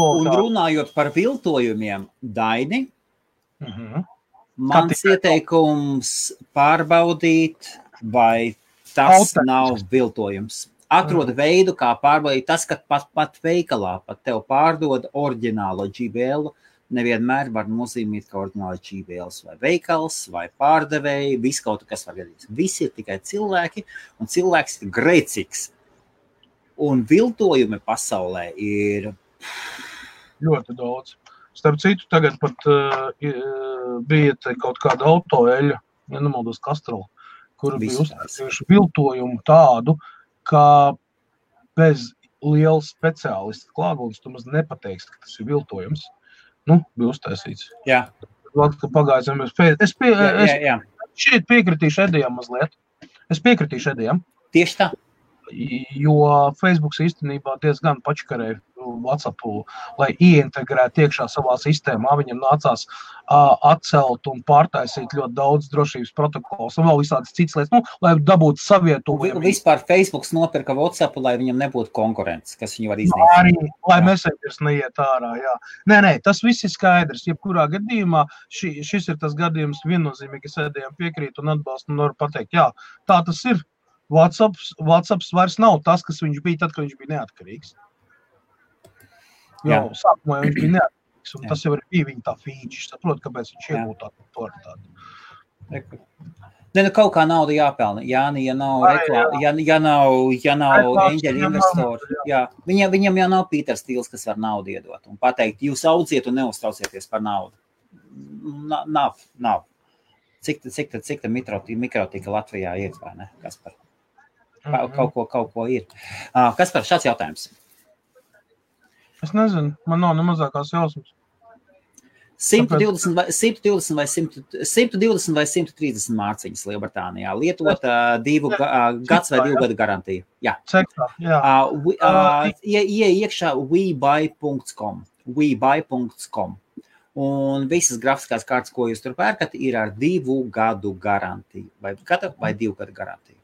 Un runājot par viltojumiem, Daini, mans ieteikums pārbaudīt, vai tas nav viltojums. Atrod veidu, kā pārbaudīt. Tas, ka pat veikalā pat tev pārdod oriģinālo JBL, nevienmēr var nozīmēt, ka oriģināli JBLs vai veikals vai pārdevēji, viss kaut kas var gadīt. Visi ir tikai cilvēki, un cilvēks ir grēcīgs. Un viltojumi pasaulē ir ļoti daudz. Starp citu, tagad pat bija kaut kāda autoeļa, ja nemaldos Castrol, kur bija uztaisījuši viltojumu tādu, ka bez liela speciālista klātbūtnes tu maz nepateiksi, ka tas ir viltojums. Bija uztaisīts. Jā. Pagājām. Es šeit piekritīšu Edijam mazliet. Tieši tā. Jo Facebooks īstenībā diezgan pačkarēja WhatsAppu, lai ieintegrētu iekšā savā sistēmā. Viņam nācās atcelt un pārtaisīt ļoti daudz drošības protokols un vēl visādas citas lietas, lai dabūtu savietojumu. Vispār Facebooks nopirka WhatsAppu, lai viņam nebūtu konkurences, kas viņu var iznīcināt. Arī, lai Messengers neiet ārā, jā. Nē, tas viss ir skaidrs. Jebkurā gadījumā šis ir tas gadījums viennozīmīgi, es Edijam piekrītu un atbalstu un varu pateikt, jā, tā tas ir. WhatsApps vairs nav tas, kas viņš bija tad, kad viņš bija neatkarīgs. Jau sākumā viņš bija neatkarīgs, un tas jau bija viņa tā feature. Saprot, kāpēc viņš iegūtā autoritāti. Kaut kā nauda jāpelna. Jāni, ja nav reklāma, ja nav eņģeļu investori. Jā. Viņam jau nav Pīters Stīls, kas var naudu iedot un pateikt, jūs audziet un neuztraucieties par naudu. Nav. Cik tā mikrotika Latvijā ir, vai ne, Kaspar? Kaut ko ir. Kaspar, šāds jautājums. Es nezinu, man nav nemazākās jausmas. 120 vai 130 mārciņas Lielbritānijā. Lietot 2 gads vai 2 gadu garantiju. Jā. Cektā, jā. Iekšā webuy.com. Un visas grafiskās kārtas, ko jūs tur pērkat, ir ar 2 gadu garantiju. Vai 2 gadu garantiju.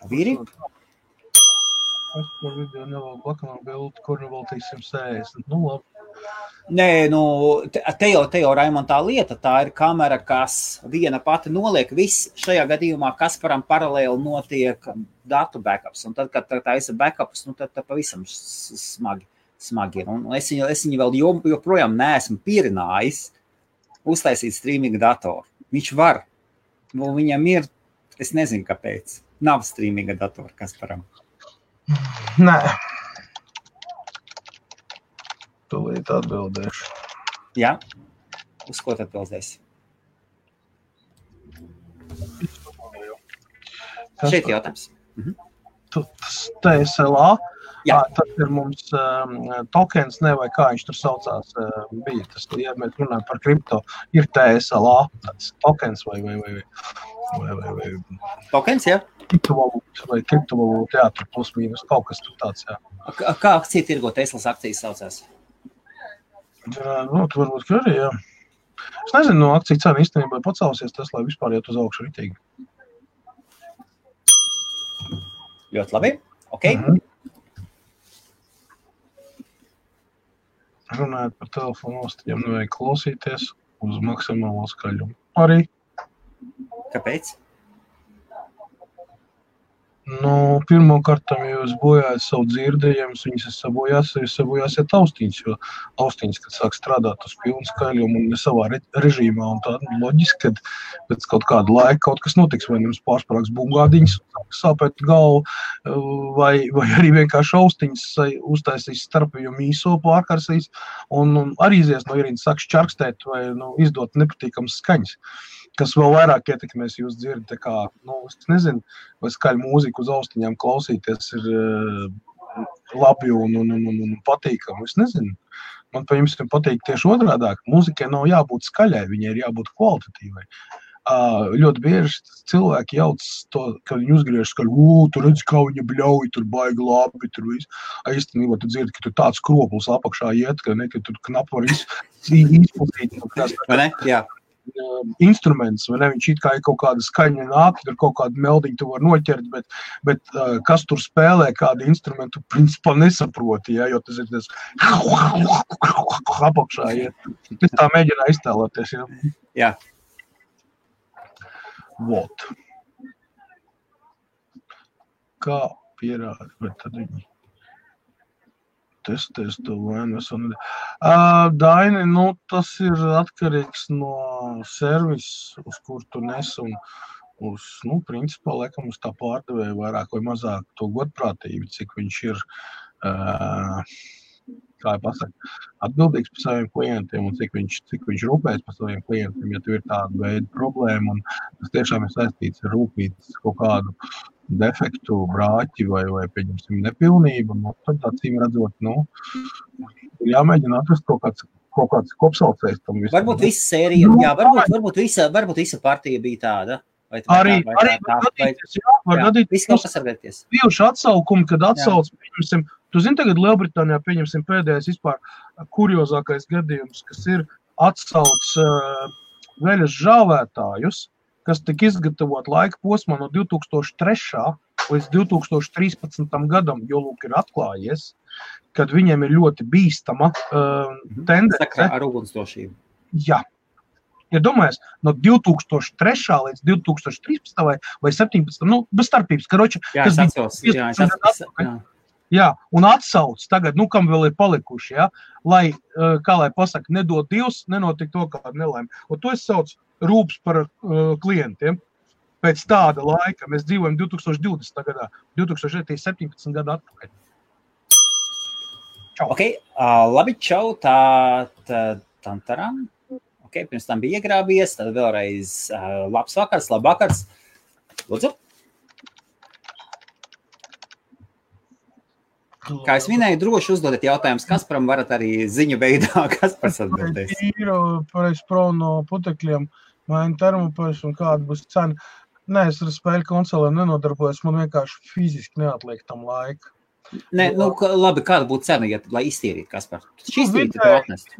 Vīri? Es par video nevēlu blakamā bildi, kur vēl 160. Labi. Nē, nu, te jau Raimond tā lieta, tā ir kamera, kas viena pati noliek viss. Šajā gadījumā Kasparam paralēli notiek datu backups, un tad, kad tā ir backups, nu, tad pavisam smagi ir. Un es viņu vēl joprojām neesmu pierinājis uztaisīt streaminga datoru. Viņš var, nu, viņam ir, es nezinu, kāpēc. Nav streaminga datora Kasparam. Nē. Tūlīt atbildēšu. Jā? Uz ko tad atbildēsi? Šeit jautājums. Tas TSLA, Jā. tas ir mums tokens, ne, vai kā viņš tur saucās, bija tas, ja mēs runājam par kripto, ir TSLA, tāds tokens vai Tokens, jā? kriptovalūta, jā, tur plus mīnus, kaut kas tur tāds, jā. Kā akcija tirgo Teslas akcijas saucās? Nu, tu varbūt, ka arī, jā. Es nezinu, no akciju cena īstenībā pacelsies Tesla vispār iet uz augšu ritīgi. Ļoti labi. Ok. Runājot par telefonu ostiem, nevajag klausīties uz maksimālo skaļumu. Arī. Kāpēc? Nu, pirmkārtam, ja jūs bojājat savu dzirdējumus, viņas sabojāsiet austiņas, jo austiņas, kad sāk strādāt uz pilnu skaļumu un ne savā režīmā, un tā loģiski, kad pēc kaut kāda laika kaut kas notiks, vai jums pārsprāks bungādiņas, sāpēt galvu, vai arī vienkārši austiņas uztaisīs starpījumu īso pārkarsīs, un arī izies no ierīnas sāk šķarkstēt vai izdot nepatīkams skaņas, kas vēl vairāk ietekmēs jūs dzirdi, tā kā, es nezinu, vai skaļu mūziku uz austiņām klausīties ir labi un patīkami, es nezinu. Man pa jums patīk tieši otrādāk, mūzikai nav jābūt skaļai, viņai ir jābūt kvalitatīvai. Ļoti bieži cilvēki jauc to, kad viņi uzgriež skaļu, tu redzi, kā viņa bļauj, tur baigi labi, tur viss. Īstenībā tu dzirdi, ka tur tāds kroplis apakšā iet, ka tur knap var izplatīt. Vai ne? Jā. Instruments, vai ne, viņš it kā ir kaut kāda skaņa nāk, tur kaut kādu meldiņu tu var noķert, bet kas tur spēlē, kādu instrumentu, principā nesaproti, ja, jo tas ir tas apakšā, ja. Es tā mēģināju iztēloties, ja. Jā. Vot. Kā pierāda, bet tad viņi testēs to vainu. Daini, tas ir atkarīgs no servisa, uz kur tu nes un uz, principā, laikam uz tā pārdevēja vairāk vai mazāk to godprātību, cik viņš ir, kā pasaka, atbildīgs par saviem klientiem un cik viņš rūpēs par saviem klientiem, ja tu ir tāda veida problēma un tas tiešām ir saistīts ar rūpītas kaut kādu defektu, brāķi vai pieņemsim nepilnību, tad acīm redzot, jāmēģina atrast kaut kāds kopsaucējs tam visam. Varbūt visa sērija, jā, varbūt visa partija bija tāda. Arī var gadīties. Viss kaut pasargāties. Bijuši atsaukumi, kad atsauc, pieņemsim, tu zini tagad Lielbritānijā, pieņemsim pēdējais vispār kuriozākais gadījums, kas ir atsauc veļas žāvētājus, kas tika izgatavot laika posmā no 2003. Līdz 2013. gadam, jo lūk ir atklājies, kad viņiem ir ļoti bīstama tendence. Sakrā ar ugunsdrošību. Jā. Ja domājies, no 2003. līdz 2013. vai 17. Bez starpības, karoči. Jā, es atceros. Jā, un atsauc tagad, kam vēl ir palikuši, ja, lai, kā lai pasaka, nedod Dievs, nenotiek to kādu nelaimi. Un to es saucu rūps par klientiem. Pēc tāda laika mēs dzīvojam 2020. gadā, 2017. gadu atpakaļ. Čau. Ok, labi, čau, tantaram. Ok, pirms tam bija iegrābies, tad vēlreiz labvakars. Lūdzu. Kā es minēju, droši uzdodiet jautājumus Kasparam, varat arī ziņu veidā Kaspars atbildēs. Pareiz pro no putekļiem, maina termopēs un kāda būs cena. Nē, es ar spēļu konsolēm nenodarbojos, man vienkārši fiziski neatliek tam laika. Nē, labi, kāda būtu cena, lai iztīrītu Kaspar? Šī iztīrītu to atnest.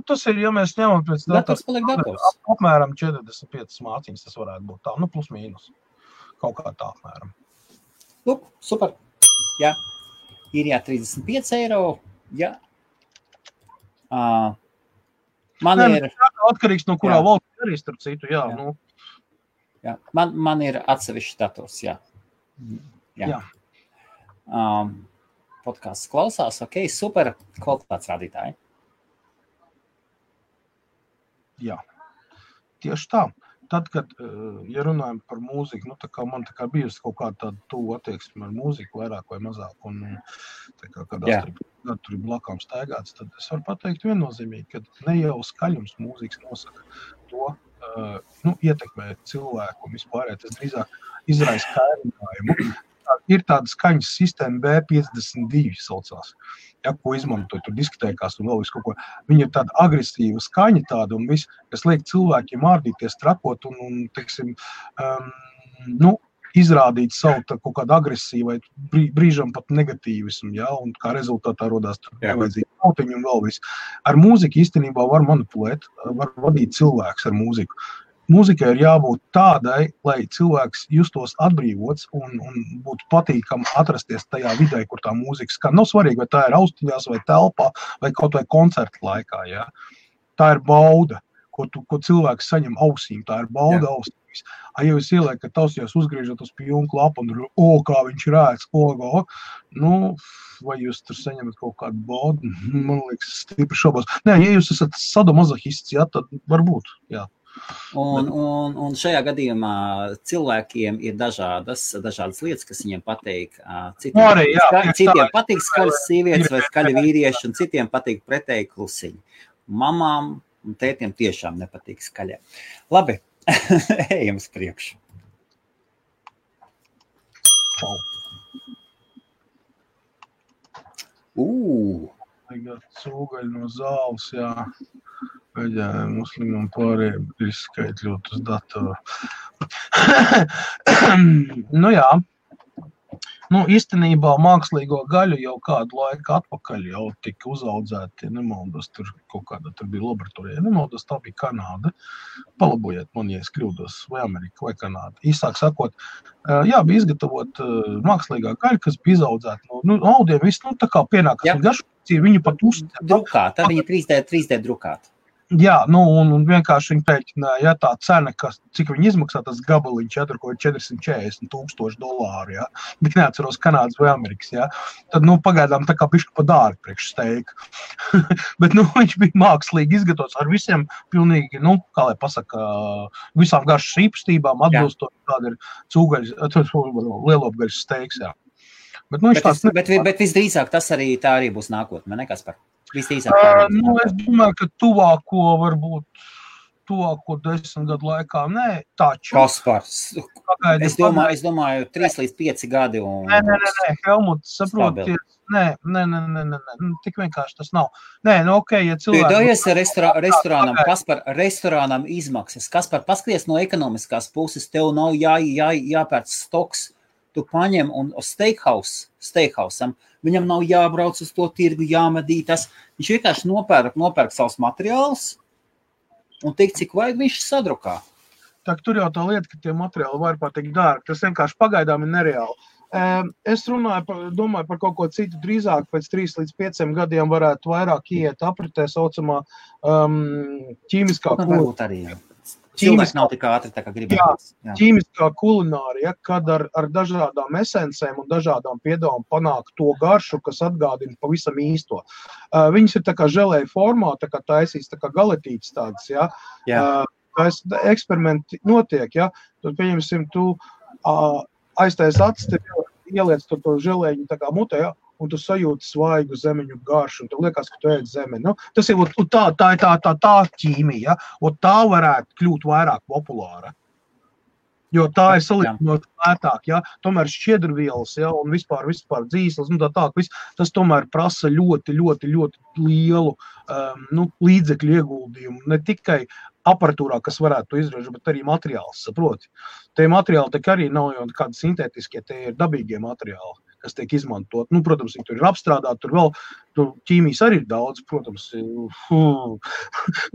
Tas ir, ja mēs ņemam pēc dators paliek dators. Apmēram 45 māciņas tas varētu būt tā, plus mīnus. Kaut kā tā apmēram. Lūk, super. Jā. Ir 35 eiro, jā. Man ir atkarīgs no kurā valsts arī starp citu, jā. Nu. Jā. Man ir atsevišķs dators, jā. Podcasts klausās, ok, super kvalitātes rādītāji. Jā, tieši tā. Tad, kad, ja runājam par mūziku, tā kā man bijusi kaut kāda tāda tuvu attieksme ar mūziku vairāk vai mazāk, un tā kā kādā gadu tur ir blakām staigāts, tad es varu pateikt viennozīmīgi, ka ne jau skaļums mūzikas nosaka to, ietekmē cilvēku un vispārējā, tas drīzāk izraisa kairinājumu. Ir tāda skaņas sistēma B52 saucās, ko izmantoja tur diskotēkās un vēl visu kaut ko. Viņa ir tāda agresīva skaņa tāda un viss, kas liek cilvēkiem ārdīties, trakot un teiksim, izrādīt savu kaut kādu agresīvu vai brīžam pat negatīvismu, un kā rezultātā rodās tur nevajadzīgi nautiņu un vēl viss. Ar mūziku īstenībā var manipulēt, var vadīt cilvēks ar mūziku. Mūzikai ir jābūt tādai, lai cilvēks justos atbrīvots un būtu patīkami atrasties tajā vidē, kur tā mūzika skan. Nav svarīgi, vai tā ir austiņās, vai telpā, vai kaut vai koncerta laikā. Ja? Tā ir bauda, ko cilvēks saņem ausīm. Tā ir bauda ausīs. Ja jūs ieliekat ausījās, uzgriežat uz pilnu klapu un kā viņš rēc, vai jūs tur saņemat kaut kādu baudu, man liekas, stipri šobos. Nē, ja jūs esat sadomazohists, tad varbūt, jā. Un šajā gadījumā cilvēkiem ir dažādas lietas, kas viņiem patīk. Citiem patīk skaļas sievietes vai skaļi vīrieši, un citiem patīk pretēji klusiņi. Mamām un tētiem tiešām nepatīk skaļie. Labi, ejam uz priekšu. Cūgaļi no zāles, jā. Veģēniem, muslimam pārējiem ir izskaitļot uz datoru. Jā. Īstenībā mākslīgo gaļu jau kādu laiku atpakaļ jau tika uzaudzēti, nemaldos, tur bija laboratorija, nemaldos, tā bija Kanāda. Palabojiet man, ja es kļūdos, vai Amerika, vai Kanāda. Īsāk sakot, bija izgatavot mākslīgā gaļa, kas bija izaudzēta no audiem, viss, tā kā pienākas un garšpacīja, viņu pat uzstāt. Drukāta, viņa 3D drukāta. Jā, un vienkārši viņi pēķināja, tā cena, cik viņi izmaksā tas gabaliņš, tur ko ir $440,000, jā, bet neatceros Kanādas vai Amerikas, jā, tad, pagaidām tā kā bišķi pa dārgi priekš steika. Bet, viņš bija mākslīgi izgatavots ar visiem pilnīgi, kā lai pasaka, visām garšas īpastībām, atbilstot, kāda ir cūgaļas, lielopgaļas steiks, jā. Bet visdrīzāk tā arī būs nākotne, ne Kaspar? Es domāju, ka tuvāko 10 gadu laikā, nē, taču. Kaspars, es domāju 3 līdz 5 gadi. Nē, Helmut, saproties, nē, tik vienkārši tas nav. Nē, ja cilvēki. Dojies restorānam, Kaspar, restorānam izmaksas. Kaspar, paskaties no ekonomiskās puses, tev nav jāpērc stoks. Tu paņem un uz steakhouse-am, viņam nav jābrauc uz to tirgu, jāmedītas. Viņš vienkārši nopērk savus materiālus un tik, cik vajag viņš sadrukā. Tur jau tā lieta, ka tie materiāli var patikt dārgi. Tas vienkārši pagaidām ir nereāli. Es domāju par kaut ko citu drīzāk, pēc 3 līdz 5 gadiem varētu vairāk iet apritē saucamā ķīmiskā varbūt arī, jā. Cilvēks nav tik ātri, tā kā gribētu. Ķīmiskā kulinārija, kad ar dažādām esencēm un dažādām piedāvām panāk to garšu, kas atgādina pavisam īsto. Viņas ir tā kā želēja formā, tā kā taisīs, tā kā galetītes tādas, jā. Eksperimenti notiek, jā. Tad, pieņemsim, tu aiztais acis, ieliec to želēņu tā kā mutē, jā. Un tu sajūti svaigu zemeņu garšu, un tev liekas, ka tu ēd zemeni. Tas ir tā ķīmija, un tā varētu kļūt vairāk populāra. Jo tā ir salīdzinot lētāk, ja? Tomēr šķiedrvielas, ja? Un vispār dzīslas, tas tomēr prasa ļoti, ļoti, ļoti lielu līdzekļu ieguldījumu. Ne tikai aparatūrā, kas varētu to izražot, bet arī materiāls, saproti. Tie materiāli tā arī nav jau kādi sintētiskie, tie ir dabīgie materiāli, kas tiek izmantot. Protams, viņi tur ir apstrādāti, tur vēl ķīmijas arī ir daudz, protams,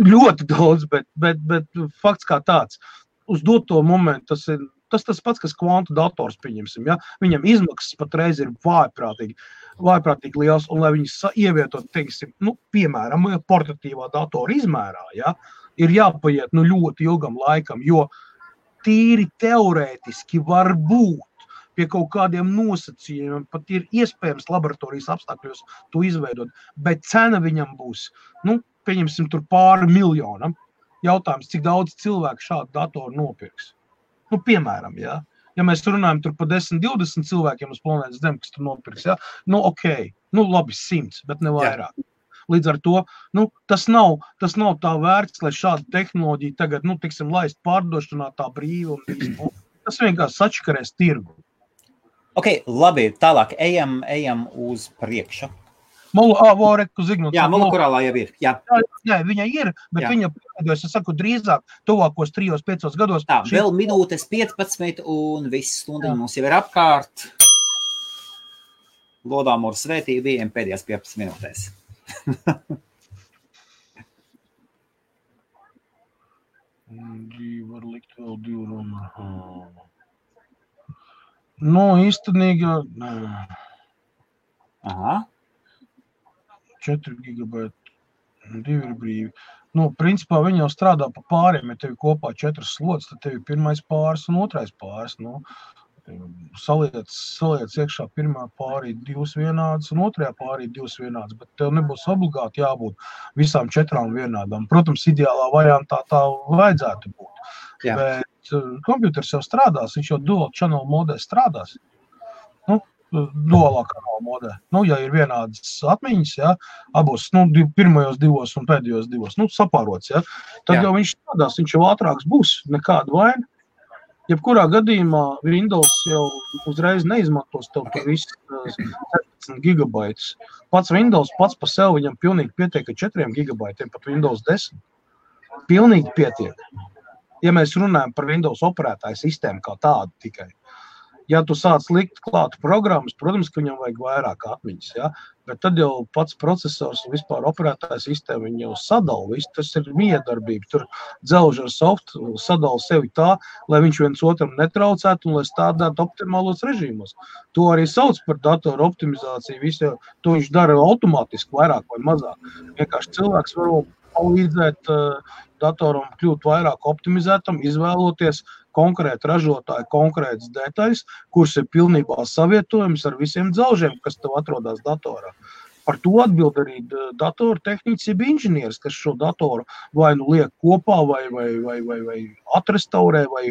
ļoti daudz, bet fakts kā tāds. Uz doto momentu tas ir tas pats, kas kvantu dators, pieņemsim, ja? Viņam izmaksas patreiz ir vājprātīgi liels, un lai viņas ievietot, teiksim, piemēram, portatīvā datora izmērā, ja? Ir jāpaiet ļoti ilgam laikam, jo tīri teorētiski var būt pie kaut kādiem nosacījumiem, pat ir iespējams laboratorijas apstākļos to izveidot, bet cena viņam būs, pieņemsim tur pāri miljonam. Jautājums, cik daudz cilvēku šādu datoru nopirks. Piemēram, ja mēs runājam tur par 10-20 cilvēkiem uz planētas Zem, kas tur nopirks, ja? Labi 100, bet ne vairāk. Līdz ar to, tas nav tā vērts, lai šāda tehnoloģija tagad, tiksim, laist pārdošanā tā brīvi un visu. Tas vienkārši sačakarēs tirgu. Ok, labi, tālāk ejam uz priekšu. Jā, Molukurālā jau ir. Jā, viņa ir, bet viņa, es saku, drīzāk tuvākos 3-5 gados. Tā, vēl minūtes 15 un viss stundiņi mums jau ir apkārt. Lodām ar svētību bijiem pēdējās 15 minūtēs. Var likt vēl 2 runu. Īstenīgi, Aha. 4 gigabaiti, 2 ir brīvi. Principā viņi jau strādā pa pāriem, ja tev kopā 4 slots, tad tev ir pirmais pāris un otrais pāris. Saliec iekšā pirmā pārī 2 vienādas un otrajā pārī 2 vienādas, bet tev nebūs obligāti jābūt visām 4 vienādām. Protams, ideālā variantā tā vajadzētu būt. Jā. Bet kompjuters jau strādās, viņš jau dual channel modē strādās. Dualā kanāla modē. Ja ir vienādas atmiņas, ja, abos, pirmajos 2 un pēdējos 2, sapārots, ja, tad jau viņš strādās, viņš jau ātrāks būs, nekāda vaina. Jebkurā gadījumā Windows jau uzreiz neizmantos tev par visu 17 gigabaitus. Pats Windows pats pa sev viņam pilnīgi pietiek ar 4 gigabaitiem, pat Windows 10. Pilnīgi pietiek. Ja mēs runājam par Windows operētāju sistēmu kā tādu tikai. Ja tu sāc likt klāt programmas, protams, ka viņam vajag vairāk atmiņas, ja? Bet tad jau pats procesors un vispār operētāja sistēma viņi jau sadala visu. Tas ir miedarbība. Tur dzelž ar softu sadala sevi tā, lai viņš viens otram netraucētu un lai stādētu optimālos režīmos. To arī sauc par datoru optimizāciju. Visu, to viņš dara automātiski vairāk vai mazāk. Vienkārši cilvēks var palīdzēt datoram kļūt vairāk optimizētam, izvēloties konkrēti ražotāji, konkrētas detaļas, kuras ir pilnībā savietojums ar visiem dzelžiem, kas tev atrodas datorā. Par to atbild arī datoru tehnicis inženieris, kas šo datoru vai liek kopā, vai atrestaurē, vai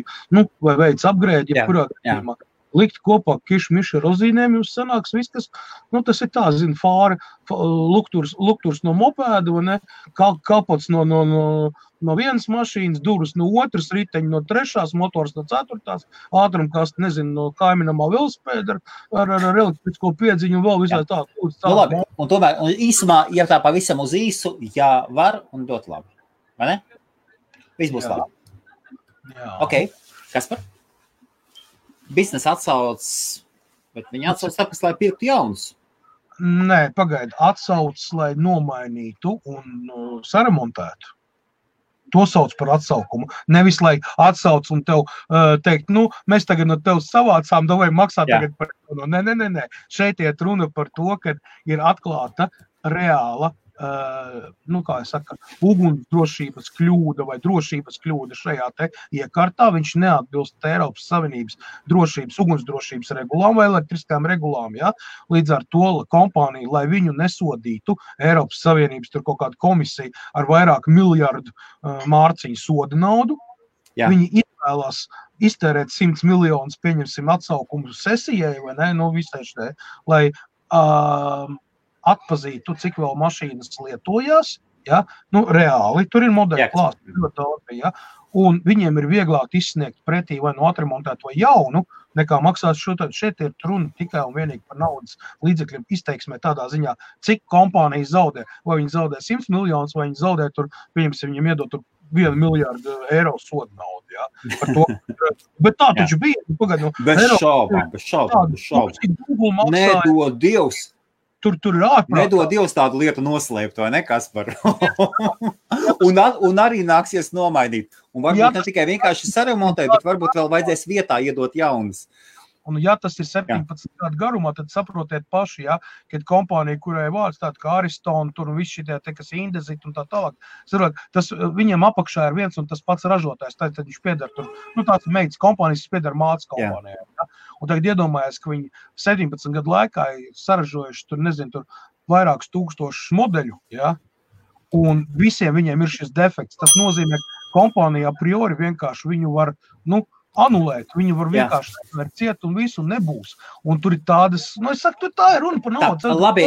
veic upgrade, jebkurā gadījumā. Likt kopā kišu-mišu rozīnēm, jums sanāks viss, kas, tas ir tā, fāri, lukturs no mopēda, vai ne, kapots no vienas mašīnas, durvis no otras, riteņi no trešās, motors no ceturtās, ātrumkast, no kaiminamā velospēda ar elektrisko piedziņu un vēl visai tā. Labi, un tomēr, īsumā, ja tā pavisam uz īsu, jā, var un dot labi, vai ne? Viss būs labi. Jā. Ok, Kaspar? Biznesa atsauc, bet viņi atsauc tāpēc, lai pirktu jaunus. Nē, pagaidi, atsauc, lai nomainītu un saremontētu. To sauc par atsaukumu. Nevis, lai atsauc un tev teikt, mēs tagad no tev savācām, vai maksā tagad par to. Nē. Šeit iet runa par to, ka ir atklāta reāla ugunsdrošības kļūda vai drošības kļūda šajā te iekārtā. Viņš neatbilst Eiropas Savienības ugunsdrošības regulām vai elektriskām regulām. Ja? Līdz ar to kompānija, lai viņu nesodītu, Eiropas Savienības tur kaut kāda komisija ar vairāk miljardu mārciņu soda naudu, viņi izvēlās iztērēt 100 miljonus, pieņemsim atsaukumu sesijai, vai ne, visai štai, lai atpazītu, cik vēl mašīnas lietojās, ja? Reāli, tur ir modeļi klāsti, ļoti daudz, ja? Un viņiem ir vieglāk izsniegt pretī vai atremontēt vai jaunu, nekā maksāt šo. Šeit ir runa tikai un vienīgi par naudas līdzekļiem izteiksmē tādā ziņā, cik kompānija zaudē, vai viņi zaudē 100 miljonus, vai viņi zaudē tur, viņiem iedot tur 1 miljardu eiro soda naudu, ja? Par to. Bet tā taču bija. Bez šaubām. Nedod Dievs. tur ir ārprātā. Nedod Dievs tādu lietu noslēpt, vai ne, Kaspar? un arī nāksies nomainīt. Un varbūt ne tikai vienkārši saremontēt, bet varbūt vēl vajadzēs vietā iedot jaunas. Un ja tas ir 17 gadu garumā, tad saprotiet paši, ja, kad kompānija, kurai vārds tāda kā Ariston, tur un viss šitie, kas Indezit un tā tālāk, tas viņiem apakšā ir viens un tas pats ražotājs, tad viņš pieder tur, tāds meitas kompānijas, pieder mācas kompānijai. Ja. Un tagad iedomājies, ka viņi 17 gadu laikā ir saražojuši tur, tur vairākus tūkstošus modeļu, ja, un visiem viņiem ir šis defekts. Tas nozīmē, ka kompānija a priori vienkārši viņu var, anulēt, viņu var vienkārši atvērt ciet un visu nebūs. Un tur ir tādas, es saku, tā ir runa par naudu. Labi,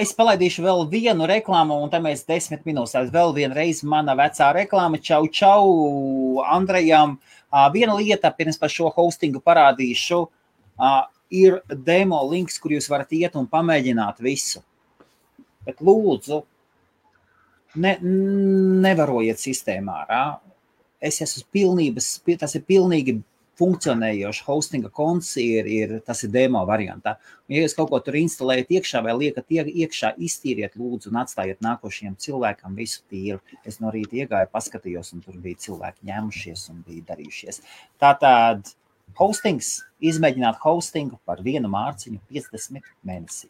es palaidīšu vēl vienu reklāmu, un tad mēs 10 minūtēs vēl vienreiz mana vecā reklāma. Čau Andrejam. Viena lieta, pirms par šo hostingu parādīšu, ir demo links, kur jūs varat iet un pamēģināt visu. Bet lūdzu, nevarojiet sistēmā ārā. Es esmu tas ir pilnīgi funkcionējoši hostinga konts, tas ir demo variantā. Un, ja jūs kaut ko tur instalējat iekšā vai liekat iekšā, iztīriet lūdzu un atstājiet nākošajiem cilvēkam visu tīru. Es no rīta iegāju, paskatījos, un tur bija cilvēki ņēmušies un bija darījušies. Tātad hostings, izmēģināt hostingu par 1 mārciņu 50 mēnesī.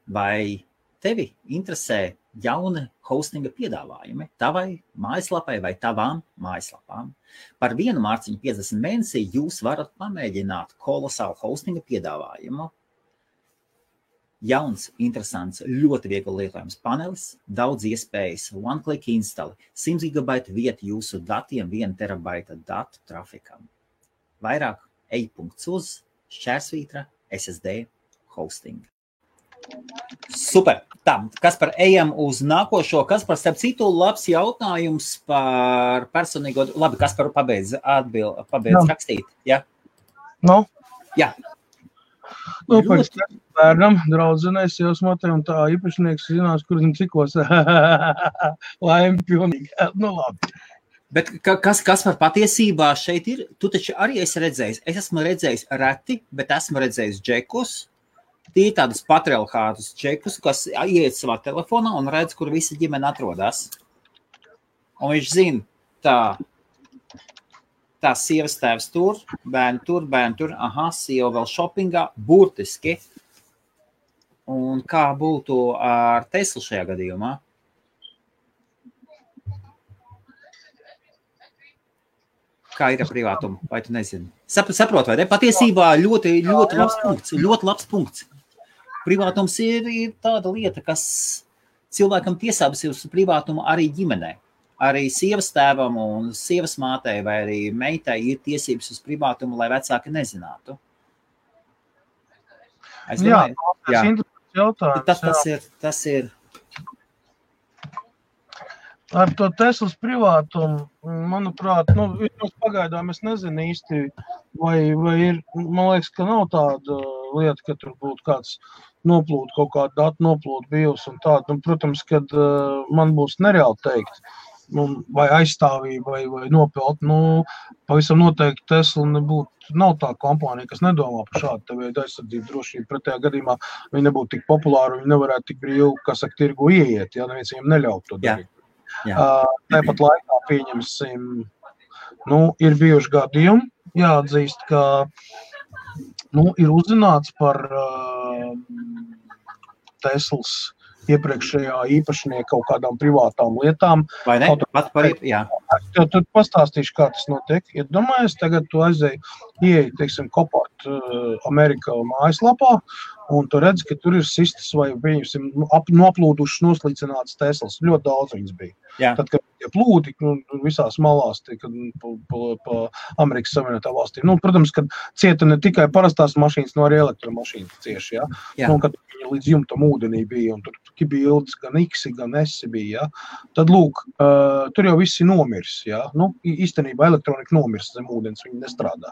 Vai tevi interesē jauni hostinga piedāvājumi tavai mājaslapai vai tavām mājaslapām? Par 1 mārciņu 50 mēnesī jūs varat pamēģināt kolosālu hostinga piedāvājumu. Jauns, interesants, ļoti viegli lietojams panelis, daudz iespējas, one-click install, 100 GB vieta jūsu datiem, 1 terabaita datu trafikam. Vairāk ej.uz / SSD hosting. Super. Tā, Kaspar, ejam uz nākošo. Kaspar, starp citu, labs jautājums par personīgo... Labi, Kaspar, pabeidz rakstīt. Ja? No? Jā. Pēc bērnam, draudzenēs, jau smatē, un tā īpašnieks zinās, kur zin cikos. Laimi pilnīgi. Labi. Bet Kaspar, patiesībā šeit ir, tu taču arī esi redzējis. Es esmu redzējis reti, bet esmu redzējis džekus. Tie ir tādus patriarchātus čekus, kas ieiet savā telefonā un redz, kur visa ģimene atrodas. Un viņš zina, tā sievas tēvs tur, bērni tur, sieva vēl šopingā, burtiski. Un kā būtu ar Teslu šajā gadījumā? Kā ir ar privātumu, vai tu nezini? Saprot, vai ne? Patiesībā ļoti labs punkts. Privātums ir tāda lieta, kas cilvēkam tiesības uz privātumu arī ģimenē. Arī sievas tēvam un sievas mātei vai arī meitai ir tiesības uz privātumu, lai vecāki nezinātu. Jā, tas ir interesants jautājums. Tas ir. Ar to Teslas privātumu, manuprāt, pagaidām es nezinu īsti, vai ir, man liekas, ka nav tāda lieta, ka tur būtu kāds noplūdu, kaut kādu datu noplūdu bijusi un tādu. Protams, kad man būs nereāli teikt, vai aizstāvība, vai nopelt, pavisam noteikti Tesla nav tā kompānija, kas nedomā par šādu veidu aizsardzību drošību. Pretējā gadījumā viņi nebūtu tik populāri, viņi nevarētu tik brīvi, tirgu ieiet, ja neviens viņiem neļaut to darīt. Tāpat laikā pieņemsim, ir bijuši gadījumi, jāatzīst, ka ir uzzināts par Teslas iepriekšējā īpašnieka kaut kādām privātām lietām. Vai ne? Jā. Tad pastāstīšu, kā tas notiek. Ja domājies, tagad tu ieej, teiksim, Copart Amerikā mājaslapā, un tu redzi, ka tur ir sistas vai, pieņemsim, noplūdušas, noslīcinātas Teslas. Ļoti daudz viņas bija. Jā. Tad, kad tie plūdi visās malās, pa Amerikas Savienotā valstī. Protams, kad cieta ne tikai parastās mašīnas, no arī elektromašīnas cieši, ja? Kad viņi līdz jumtam ūdenī bija, un tur bildes gan X, gan S bija, ja? Tad, lūk, tur jau visi nomirs, ja? Īstenībā elektronika nomirs zem ūdens, viņi nestrādā.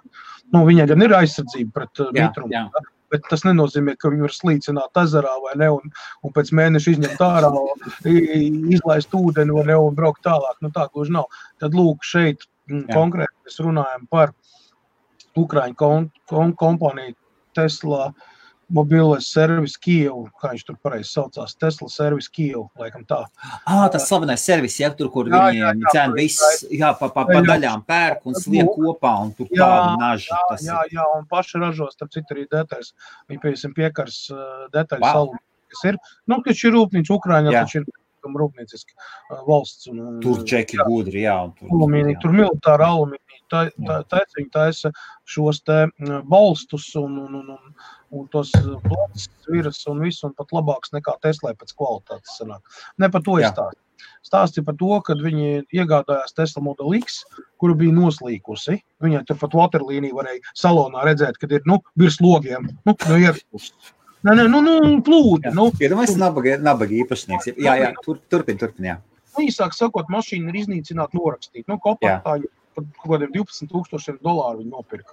Viņai gan ir aizsardzība pret mitrumu, ja? Bet tas nenozīmē, ka viņi var slīcināt ezerā vai ne, un pēc mēneša izņemt ārā, izlaist ūdeni vai ne, un braukt tālāk. Tā gluži nav. Tad lūk, šeit konkrēti mēs runājam par Ukraiņu kompāniju Tesla. mobilais servis Kijevu, kā viņš tur pareizi saucās, Tesla servis Kijevu, laikam tā. Tas slavenais servis, tur, kur viņi cena viss, pa daļām pērk un sliek kopā, un tur tāda naža. Jā, un paši ražos, starp citu arī detaļas. Viņi, piemēram, piekars detaļas alumīni, kas ir. Taču ir rūpnīca Ukraiņā, taču ir rūpnieciski valsts. Tur džeki gudri, jā. Tur militāra alumīni, viņi taisa šos te balstus un tos plats, viras un visu, un pat labāks nekā Teslai pēc kvalitātes sanāk. Ne par to izstāst. Stāsti par to, kad viņi iegādājās Tesla Model X, kuru bija noslīkusi. Viņai tur pat waterlīniju varēja salonā redzēt, kad ir, virs logiem, ierpus. Plūdi. Iedomājies, nabaga īpašnieks. Jā, turpin, jā. Īsāk sakot, mašīna ir iznīcināta norakstīt. Kompaktāju par kaut kādiem $12,000 viņi nopirka.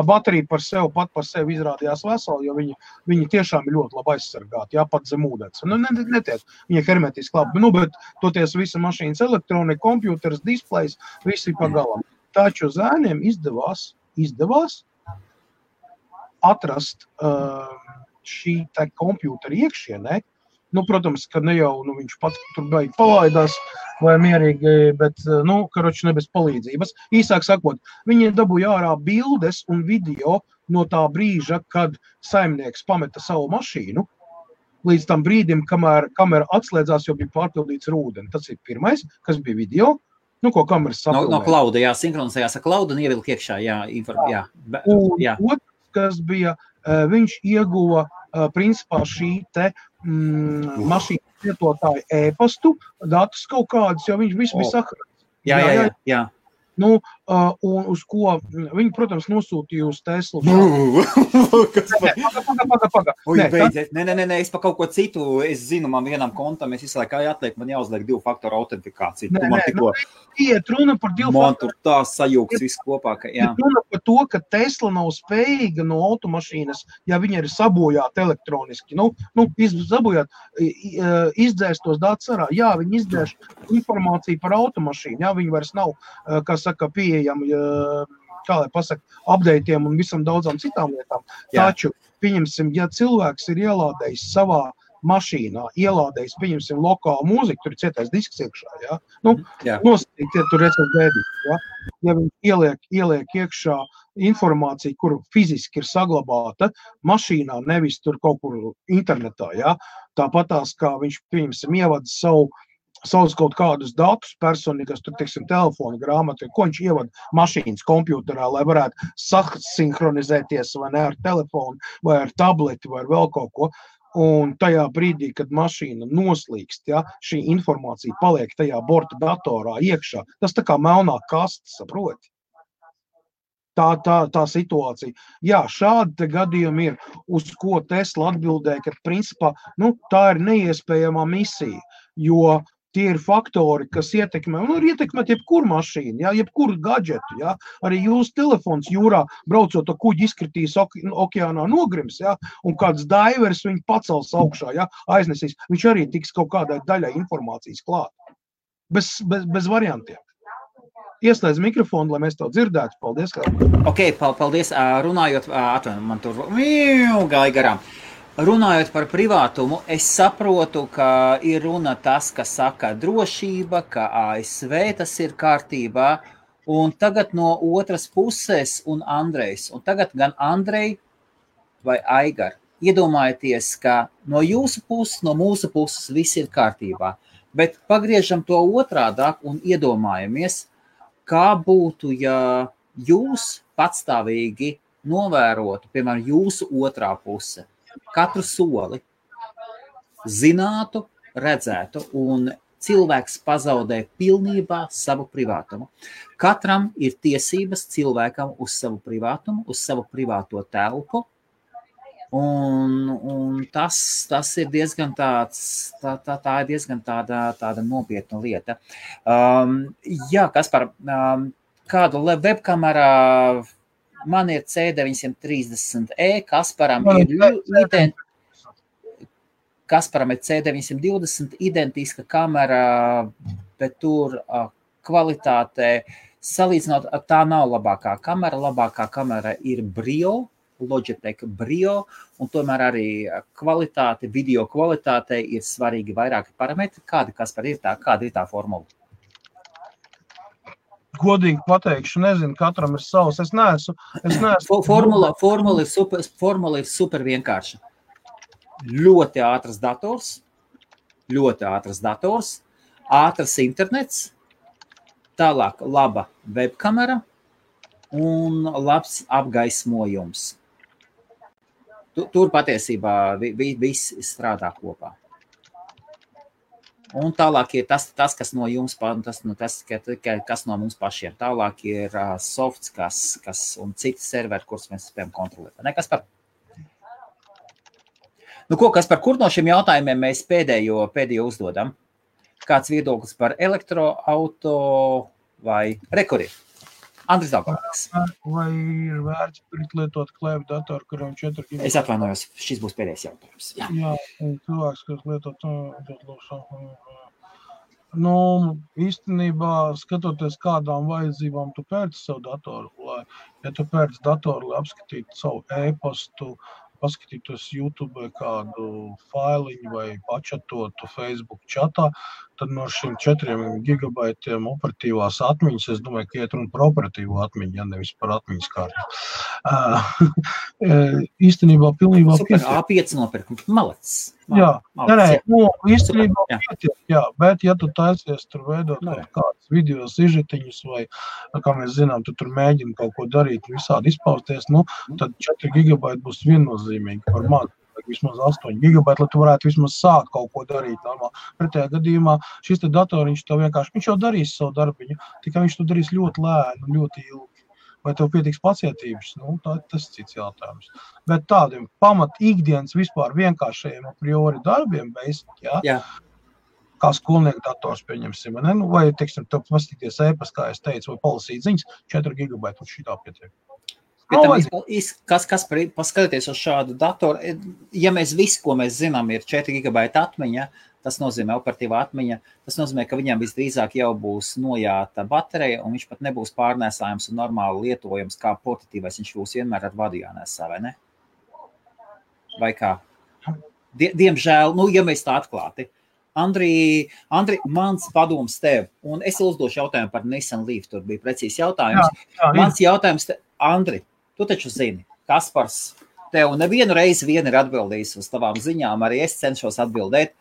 Baterija pat par sevi izrādījās vesela, jo viņi tiešām ir ļoti labi aizsargāti, pat zem ūdens. Netiek, viņi ir hermetiski labi. Bet toties visa mašīnas elektronika, kompjūters, displejs, visi pagalam. Taču zēniem izdevās atrast šī tā kompjūtera iekšienē. Protams, ka ne jau viņš pats tur beig palaidās vai mierīgi, bet, karoči ne bez palīdzības. Īsāk sakot, viņi dabūja ārā bildes un video no tā brīža, kad saimnieks pameta savu mašīnu, līdz tam brīdim, kamēr kamera atslēdzās, jo bija pārpildīts ar ūdeni. Tas ir pirmais, kas bija video. Ko kameras sapilnē. No klauda, sinhronizējās ar klaudu un ievilk iekšā, Otrs, kas bija, viņš ieguva principā šī te mašīnas lietotāju e-pastu, datus kaut kādus, jo viņš visu bija sakarāts. Jā. Un uz ko viņi, protams, nosūtīja uz Teslu. Paga. Nē, es pa kaut ko citu, es zinu, man vienam kontam, es visu laiku atliek, man jāuzliek 2-faktoru autentifikāciju. Iet runa par 2-faktoru. Man tur tā sajūgs viss kopā, ka jā. Iet runa par to, ka Tesla nav spējīga no automašīnas, ja viņa ir sabojāta elektroniski, izdzēst tos datus arā. Jā, viņi izdzēš informāciju par automašīnu, jā, viņi vairs nav, pieejami, kā lai pasaka, updateiem un visam daudzām citām lietām. Taču, pieņemsim, ja cilvēks ir ielādējis savā mašīnā, pieņemsim, lokālu mūziku, tur ir cietais disks iekšā, nosacīt, tur redzēt bēdīt, ja viņi ieliek iekšā informāciju, kur fiziski ir saglabāta mašīnā, nevis tur kaut kur internetā, tāpatās, kā viņš, pieņemsim, ievada savus kaut kādus datus personīgas, tur, teiksim, telefona grāmatu, ko viņš ievada mašīnas kompjūterā, lai varētu sasinhronizēties vai ne ar telefonu, vai ar tableti, vai ar vēl kaut ko. Un tajā brīdī, kad mašīna noslīkst, šī informācija paliek tajā borta datorā iekšā, tas tā kā melnā kaste, saproti? Tā situācija. Jā, šādi gadījumi ir, uz ko Tesla atbildēja, ka principā, tā ir neiespējamā misija, jo tie ir faktori, kas ietekmē, un ir ietekmēt jebkuru mašīnu, jebkuru gadžetu, arī jūsu telefons jūrā braucot to kuģi izkritīs okeānā nogrims, un kāds daivers viņu pacels augšā, aiznesīs, viņš arī tiks kaut kādai daļai informācijas klāt. Bez variantiem. Ieslēdz mikrofonu, lai mēs to dzirdētu. Paldies, kā. Paldies. Runājot, man tur gāja garām. Runājot par privātumu, es saprotu, ka ir runa tas, ka saka drošība, ka ASV tas ir kārtībā, un tagad no otras puses un Andrejs, un tagad gan Andrej vai Aigar, iedomājieties, ka no jūsu puses, no mūsu puses viss ir kārtībā, bet pagriežam to otrādāk un iedomājamies, kā būtu, ja jūs patstāvīgi novērotu, piemēram, jūsu otrā puse, katru soli, zinātu, redzētu, un cilvēks pazaudē pilnībā savu privātumu. Katram ir tiesības cilvēkam uz savu privātumu, uz savu privāto telpu, un tas ir diezgan tā ir diezgan tāda nopietna lieta. Kaspar, kādu webkamerā man ir C930E, Kasparam ir C920 identiska kamera, bet tur kvalitāte salīdzinot, tā nav labākā kamera ir Brio Logitech Brio, un tomēr arī kvalitāte, video kvalitātei ir svarīgi vairāki parametri. Kāda ir tā formula? Godīgi pateikšu, nezinu, katram ir savs. Es neesmu. Formula ir super vienkārša. Ļoti ātrs dators, ātrs internets, tālāk laba webkamera un labs apgaismojums. Tur patiesībā viss strādā kopā. Un tālāk ir tas kas no jums, kas no mums pašiem. Tālāk ir softs, un citi serveri, kurus mēs spējam kontrolēt. Nekas par. Kaspar, kur no šiem jautājumiem mēs pēdējo uzdodam? Kāds viedoklis par elektroauto vai rekuri? Andris Daugavnieks. Vai ir vērts lietot klēvu datoru, kuram 4 GB? Es atvainojos, šis būs pēdējais jautājums. Jā, cilvēks, kas lietot īstenībā, skatoties kādām vajadzībām tu pērci savu datoru, ja tu pērci datoru, lai apskatītu savu e-pastu, paskatītos YouTube kādu failiņu vai pačatotu Facebook čatā, tad no šiem 4 gigabaitiem operatīvās atmiņas, es domāju, ka iet runa par operatīvo atmiņu, ja nevis par atmiņas kārtu. Īstenībā pilnībā pietiek. Super, A5 nopirkt, malacis. Īstenībā pietiek, bet ja tu taisies tur veidot kādas video sižetiņus vai, kā mēs zinām, tu tur mēģini kaut ko darīt, visādi izpausties, tad 4 gigabaiti būs viennozīmīgi par maz. Vismaz 8 gigabaiti, lai tu varētu vismaz sākt kaut ko darīt normāli. Pretējā gadījumā šis te datoriņš tev vienkārši, viņš jau darīs savu darbiņu, tikai viņš to darīs ļoti lēni, ļoti ilgi. Vai tev pietiks pacietības? Tas ir cits jautājums. Bet tādiem pamat ikdienas vispār vienkāršajiem a priori darbiem, kā skolnieku dators pieņemsim, vai, teiksim, tev pastīties e-pas, kā es teicu, vai palasīt ziņas, 4 gigabaiti un šitā pietiek. Paskatieties uz šādu datoru, ja mēs visu, ko mēs zinām, ir 4 gigabaita atmiņa, tas nozīmē operatīvā atmiņa, tas nozīmē, ka viņam visdrīzāk jau būs nojāta baterija, un viņš pat nebūs pārnēsājams un normāli lietojams kā portatīvais, viņš būs vienmēr ar vadu jānēsā, vai ne? Vai kā? Diemžēl, ja mēs tā atklāti. Andri, mans padoms tev, un es uzdošu jautājumu par Nissan Leaf, tur bija precīzi jautājums. Mans jautājums te, Andri, tu taču zini, Kaspars, tev nevienu reizi vien ir atbildījis uz tavām ziņām, arī es cenšos atbildēt.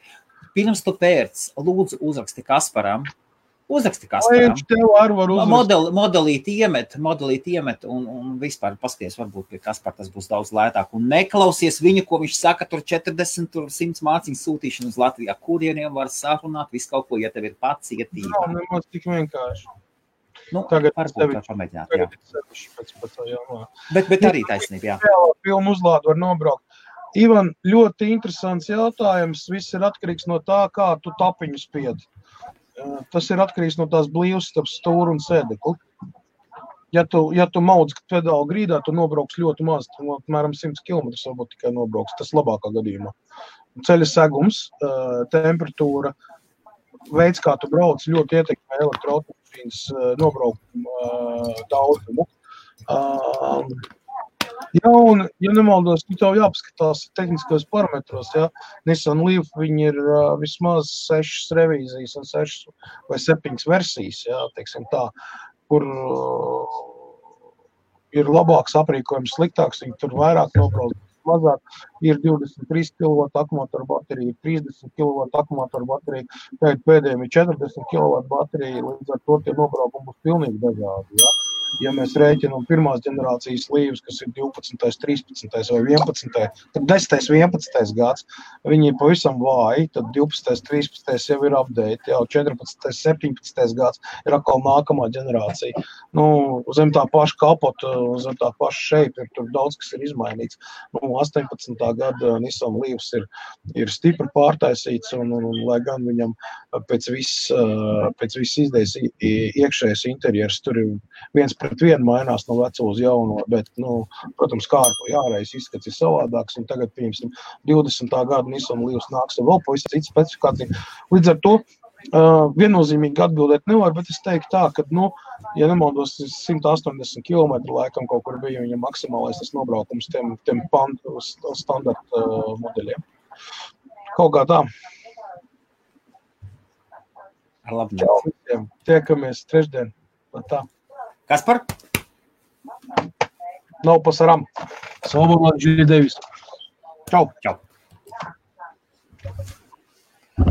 Pirms tu pērc, lūdzu uzraksti Kasparam. Modelīt iemet un vispār paskaties, varbūt pie Kaspara tas būs daudz lētāk. Un neklausies viņu, ko viņš saka, tur 40, tur 100 māciņu sūtīšanu uz Latvijā, kurieniem var sarunāt, visu kaut ko, ja tev ir pacietība. Nemaz tik vienkārši. Tagad varbūt var pamēģināt, jā. Bet arī taisnība, jā. Filmu uzlādu var nobraukt. Ivan, ļoti interesants jautājums. Viss ir atkarīgs no tā, kā tu tapiņu spiedi. Tas ir atkarīgs no tās blīvas starp stūru un sēdekli. Ja tu maudz pedālu grīdā, tu nobrauks ļoti maz, tu apmēram 100 km varbūt tikai nobrauks. Tas labākā gadījumā. Ceļa segums, temperatūra, veids, kā tu brauc, ļoti ietekmē elektroautomašīnas nobraukumu daudzumu. Un, ja nemaldos, tev jāpaskatās tehniskos parametros, Nissan Leaf, viņi ir vismaz 6 revīzijas un 6 vai 7 versijas, teiksim tā, kur ir labāks aprīkojums, sliktāks, viņi tur vairāk nobrauc, mazāk, ir 23 kW akumulātoru baterija, 30 kW akumulātoru baterija, tagad pēdējiem ir 40 kW baterija, līdz ar to tie nobraukumi būs pilnīgi dažādi, Ja mēs rēķinām pirmās ģenerācijas Leafs, kas ir 12., 13. vai 11., tad 10., 11. gads, viņi ir pavisam vāji, tad 12., 13. jau ir update, jau 14., 17. gads ir atkal nākamā ģenerācija. Zem tā paša kapota, zem tā paša šeipa, tur daudz kas ir izmainīts. 18. gada Nissan Leafs ir stipri pārtaisīts, un lai gan viņam pēc viss izdejas iekšējais interjers, tur ir 1:1 mainās no veco uz jauno, bet, protams, kārpa jāreiz izskats ir savādāks, un tagad, piemēram, 20. gada Nissan Leafs nāks vēl pavisam cits specifikācija. Līdz ar to Viennozīmīgi atbildēt nevar, bet es teiktu tā, ka, ja nemaldos, 180 km laikam kaut kur bija viņa maksimālais tas nobraukums tiem standarta modeļiem. Kaut kā tā. Ar labu Čau visiem. Tiekamies trešdien. Tā. Kaspar? Nav pasaram. Salvador G. Davis. Čau. Čau.